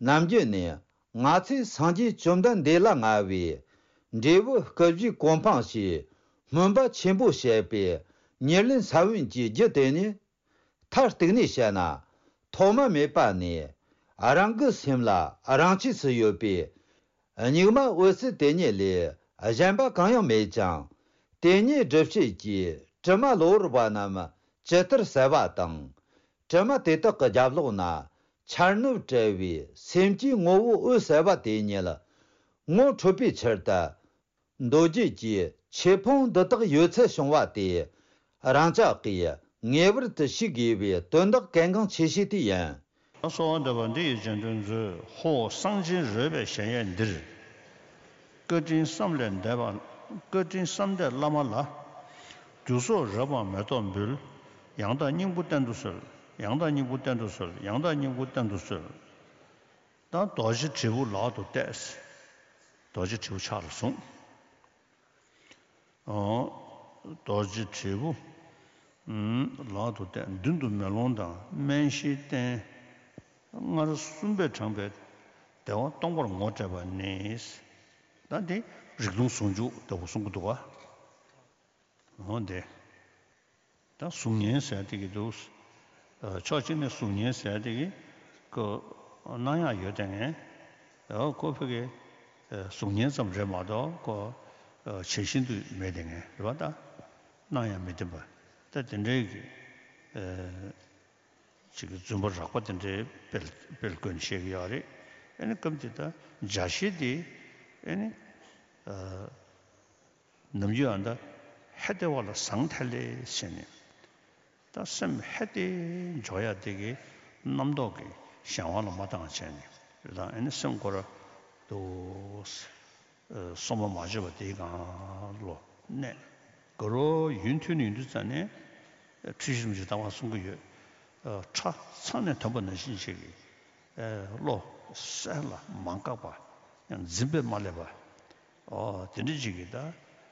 ནམ་རྒྱུན་ནས་ང་ཚོས་སངས་རྒྱས་བཅོམ་ལྡན་འདས་ལ་མངའ་བའི་འབྲས་བུ་སྐུ་བཞིའི་གོ་འཕང་ཞེས་སྨོན་པ་ཆེན་པོ་བྱས་པའི་ཉེར་ལེན་ས་བོན་གྱི་རྒྱུ་དེ་ནི། མཐར་གཏུགས་ནས་བཤད་ན། ཐོག་མ་མེད་པ་ནས་རང་གི་སེམས་ལ་རང་ཆས་སུ་ཡོད་པའི་གཉུག་མ་འོད་གསལ་དེ་ཉིད་ལས་གཞན་པ་གང་ཡང་མེད་ཅིང་། དེ་ཉིད་སྒྲུབ་བྱེད་ཀྱི་དྲི་མ་གློ་བུར་བ་རྣམས་ཇི་ལྟར་གསལ་བ་དང་། དྲི་མ་དེ་དག་གི་རྒྱབ་ལོགས་ན་ འཆར་ནུབ་བྲལ་བའི་སེམས་ཀྱི་ངོ་བོ་འོད་གསལ་བ་དེ་ཉིད་ངོ་འཕྲོད་པའི་ཕྱིར་དུ། མདོ་རྒྱུད་ཀྱི་ཆོས་ཕུང་འདི་དག་ཡོད་ཚད་བྱུང་བ་དེ། རང་ཅག་གིས་ངེས་པར་དུ་ཤེས་དགོས་པའི་དོན་དག་གལ་འགངས་ཆེ་ཤོས་དེ་ཡིན། གསོལ་བ་འདེབས་པ་འདི་ཡི་རྗེས་ཟློས་མཛོད། ཧོ། གསང་ཆེན་རོལ་པའི་གཞལ་ཡས་འདིར། བཀའ་དྲིན་བསམ་ལས་འདས་པ། བཀའ་དྲིན་བསམ་འདས་བླ་མ་ལ། རྒྱུ་ཚོགས་རབ་དབང་མེ་ཏོག་འབུལ། ཡང་དག་སྙིང་པོ་བསྟན་དུ་གསོལ། ཡང་དག་སྙིང་པོ་བསྟན་དུ་གསོལ། ཡང་དག་སྙིང་པོ་བསྟན་དུ་གསོལ། ད་རྡོ་རྗེ་དྲིལ་བུ་ལག་ཏུ་གཏད། རྡོ་རྗེ་དྲིལ་བུ་ཕྱག་ལ་བཟུང་། ཨོ། རྡོ་རྗེ་དྲིལ་བུ། ཨུམ། ལག་ཏུ་གཏད། མདུན་དུ་མེ་ལོང་དང་སྨན་ཤིང་བསྟན། སྔར་གསུངས་པས་དྲངས་པའི་བདེ་བ་སྟོང་པར་ངོ་སྤྲད་པ་ནི། ད་འདི་རིག་སྟོང་ཟུང་འཇུག་ལྟ་བུ་གསུང་གི་འདུག་ག། འོ་འདི། ད་གཟུགས་བརྙན་ཟེར་དེ་གི་འདུག། ཨ། ཕྱོགས་གཅིག་ནས་གཟུགས་བརྙན་ཟེར་དེ་གི་ཁོ་སྣང་ཡག་ཡོད་དེ་ངས། ཨོ། ཁོ་ཕ་གི། ཨ། གཟུགས་བརྙན་ཙམ་རེད་མ་གཏོགས་ཁོ། ཨ། ཇི་བཞིན་དུ་མེད་དེ་ངས་རེད་པ། ད་སྣང་ཡག་མི་བདེན་པ། ད་དེ་འདྲའི་གི། ཨ། ཅིག་གི་རྫུན་པ་རགས་པ་དེ་འདྲའི་སྤེལ་སྤེལ་དགོས་ནས་བཤད་ཀྱི་ཡོད་རེད། ཨ་ནི་སྐབས་དེ་ད་འཇའ་ཤེལ་དེ། ཨ་ནི། ཨ། ནམ་རྒྱུན་ཨ་ད་ཧད་དེ་བ་ལ་ཟང་ཐལ་ལེ་བྱས་ནས། ད་སེམས་ཧད་དེ་འཇོག་ཡ་དེ་གི་རྣམ་རྟོག་གི་གཞན་དབང་ལ་མ་བཏང་བྱས་ནས་རེད། ད་ཨ་ནི་སེམས་ཁོ་ར་དུ། ཨ། སོ་མ་མ་བརྗོད་པ་དེའི་སྒང་ལོ་གནས། དགའ་རོགས་ཡུན་ཐུང་ནས་ཡུན་དུ་ཙམ་ནས་འཁྲུལ་ཞིག་རིན་པོ་ཆེ་ལྟ་བ་གསུང་གི་ཡོད། ཨ། ཁྲ་ཚང་ནས་ཐོན་པ་ནང་བཞིན་ཞིག་གི། ཨ། བློ་གསལ་ལ་མ་འགགས་པ། ཡང་འཛིན་པས་མ་བསླད་པ། ཨོ། དེ་འདྲ་ཅིག་གི་ད་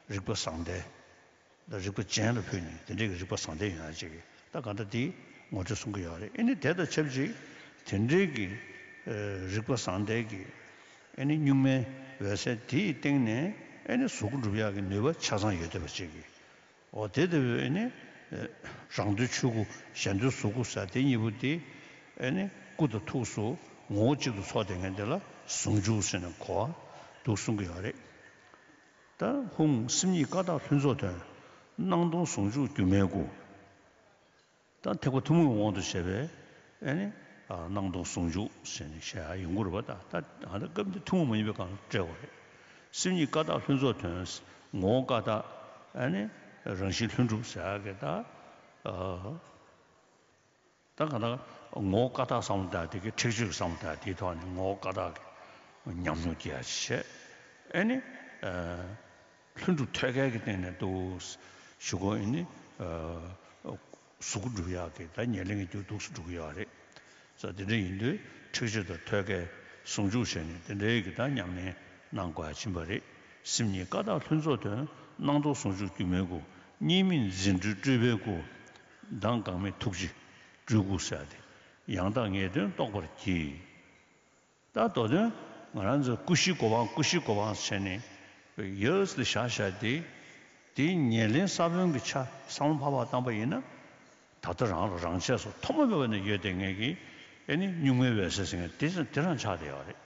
རིག་པ་བཟང་ལྡན། ད་རིག་པ་ཅན་ལ་ཕུལ་ནས་དེ་འདྲའི་གི་རིག་པ་བཟང་ལྡན་ཡོང་ཡ་ཅིག་གི་ད་ག་འདྲ་དེ་ངོ་སྤྲོད་གསུང་གི་ཡོད་རེད། ཨ་ནི་དེ་དང་ཆབས་ཅིག་དེ་འདྲའི་གི། ཨ། རིག་པ་བཟང་ལྡན་གི། ཨ་ནི་གཉུག་མའི་འོད་གསལ་དེའི་སྟེང་ནས་ཨ་ནི་གཟུགས་སྐུ་འགྲུབ་ཡག་གི་ནུས་པ་ཆ་ཚང་ཡོད་བསྡད་པ་ཅིག་གི། འོ། དེ་ལྟ་བུའི་ཨ་ནི། ཨ། རང་འདོད་ཆོས་སྐུ། གཞན་འདོད་གཟུགས་སྐུ་ཟེར་དེ་གཉིས་པོ་དེ། ཨ་ནི་སྐུ་དང་ཐུགས་སུ་ངོ་བོ་གཅིག་ཏུ་ཚོགས་བསྡད་མཁན་དེ་ལ་ཟུང་འཇུག་ཟེར་ནས་གོ་བ་འདུག་གསུང་གི་ཡོད་རེད། ད་ཧཱུྃ། སེམས་ཉིད་ཀ་དག་ལྷུན་རྫོགས་དོན། སྣང་སྟོང་ཟུང་འཇུག་སྒྱུ་མའི་སྐུ། ད་ཐེག་པ་ཐུན་མོང་གི་དབང་དུ་བྱས་པའི་ཨ་ནི། ཨ། སྣང་སྟོང་ཟུང་འཇུག་ཟེར་ནས་བཤད་ཡ་ཡོང་གི་རེད་པ། ད་ད་ཨ་ད་སྐབས་འདི་ཐུན་མོང་མ་ཡིན་པའི་སྒང་ལ་བཀྲལ་བ་རེད། སེམས་ཉིད་ཀ་དག་ལྷུན་རྫོགས་དོན། ངོ་བོ་ཀ་དག། ཨ་ནི་རང་བཞིན་ལྷུན་གྲུབ་ཟེར་ཡ་གི་ད། ཨ། ད་ག་ད་ངོ་བོ་ཀ་དག་བསམ་བློ་བཏང་དེ་གི་ཁྲེགས་ཆོད་བསམ་བློ་བཏང་དེའི་ཐོག་ནས་ངོ་བོ་ཀ་དག་གི་ཉམས་མྱོང་སྐྱེ་ཡ་བྱས། ཨ་ནི། ཨ། ལྷུན་གྲུབ་ཐོད་རྒལ་གྱི་སྟེང་ནས་འདུག་ཞུ་གོ། ཨ་ནི། ཨ། གཟུགས་སྐུ་འགྲུབ་ཡག་གི་ད་ཉེར་ལེན་གྱི་རྒྱུ་འདུག་སེ་འགྲུབ་ཀྱི་ཡོད་རེད། ས་དེ་འདྲ་ཡིན་དུས་ཁྲེགས་ཆོད་དང་ཐོད་རྒལ་ཟུང་འཇུག་བྱས་ནས་དེ་འདྲའི་གི་ད་ཉམས་ལེན་གནང་དགོས་ཡ་ཕྱིན་པ་རེད། སེམས་ཉིད་ཀ་དག་ལྷུན་རྫོགས་དོན། སྣང་སྟོང་ཟུང་འཇུག་སྒྱུ་མའི་སྐུ། གཉིས་མེད་རྫུ་འཕྲུལ་སྤྲུལ་པའི་སྐུ། མདངས་འགག་མེད་ཐུགས་རྗེ་སྤྲུལ་སྐུ་ཟེར་ཏེ། ཡང་དག་ངེས་དོན་རྟོགས་པར་བགྱི། ད་མདོ་དོན་ང་རང་ཚོ་ཀུ་ཤའི་གོ་འཕང་ཀུ་ཤའི་གོ་འཕང་བྱས་ནས་ཡོད་ལ་བཞག་བཞག་དེ། དེའི་ཉེར་ལེན་ས་བོན་གྱི་ཆ་བསམ་བློ་ཕར་ཕར་བཏང་པ་ཡིན་ན། ད་ལྟ་རང་ལ་རང་ཆས་སུ་ཐོག་མ་མེད་པ་ནས་ཡོད་བསྡད་མཁན་གྱི་ཨེ་ནི་གཉུག་མའི་འོད་གསལ་ཟེར་མཁན་དེ་དེ་རང་ཆགས་བསྡད་ཡོད་རེད།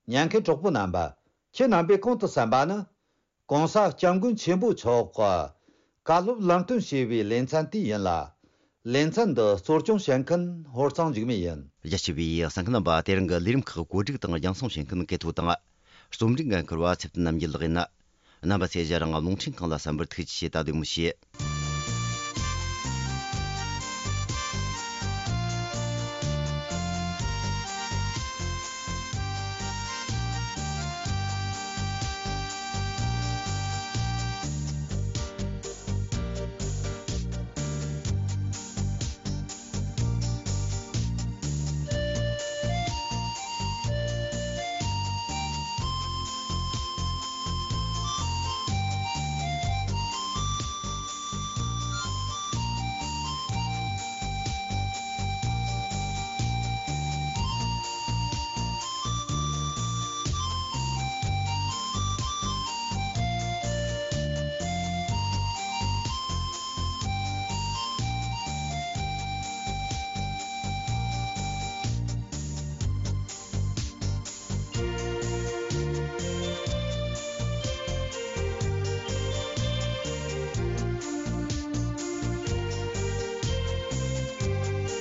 ཉན་མཁན་གྲོགས་པོ་རྣམ་པ། ཁྱེད་རྣམ་པས་གོང་དུ་གསན་པ་ནི། གོང་ས་སྐྱབས་མགོན་ཆེན་པོ་མཆོག་གི་བཀའ་སློབ་ལམ་སྟོན་ཞེས་པའི་ལེ་ཚན་དེ་ཡིན་ལ། ལེ་ཚན་འདི་གཙོ་སྐྱོང་བྱེད་མཁན་ཧོར་གཙང་འཇིགས་མེད་ཡིན། རྒྱ་ཆེ་བའི་གསན་མཁན་རྣམ་པ། དེ་རིང་གི་ལས་རིམ་ཁག་གོ་སྒྲིག་དང་རྒྱང་སྲིང་བྱེད་མཁན་གལ་ཐོ་དང་། རྩོམ་སྒྲིག་འགན་འཁུར་བ་ཚེ་བརྟན་རྣམ་རྒྱལ་ལགས་ཡིན། རྣམ་པ་ཚོས་ང་རང་རླུང་འཕྲིན་ཁང་ལ་གསན་པར་ཐུགས་རྗེ་ཆེ། ད་བདེ་མོ་བྱོས།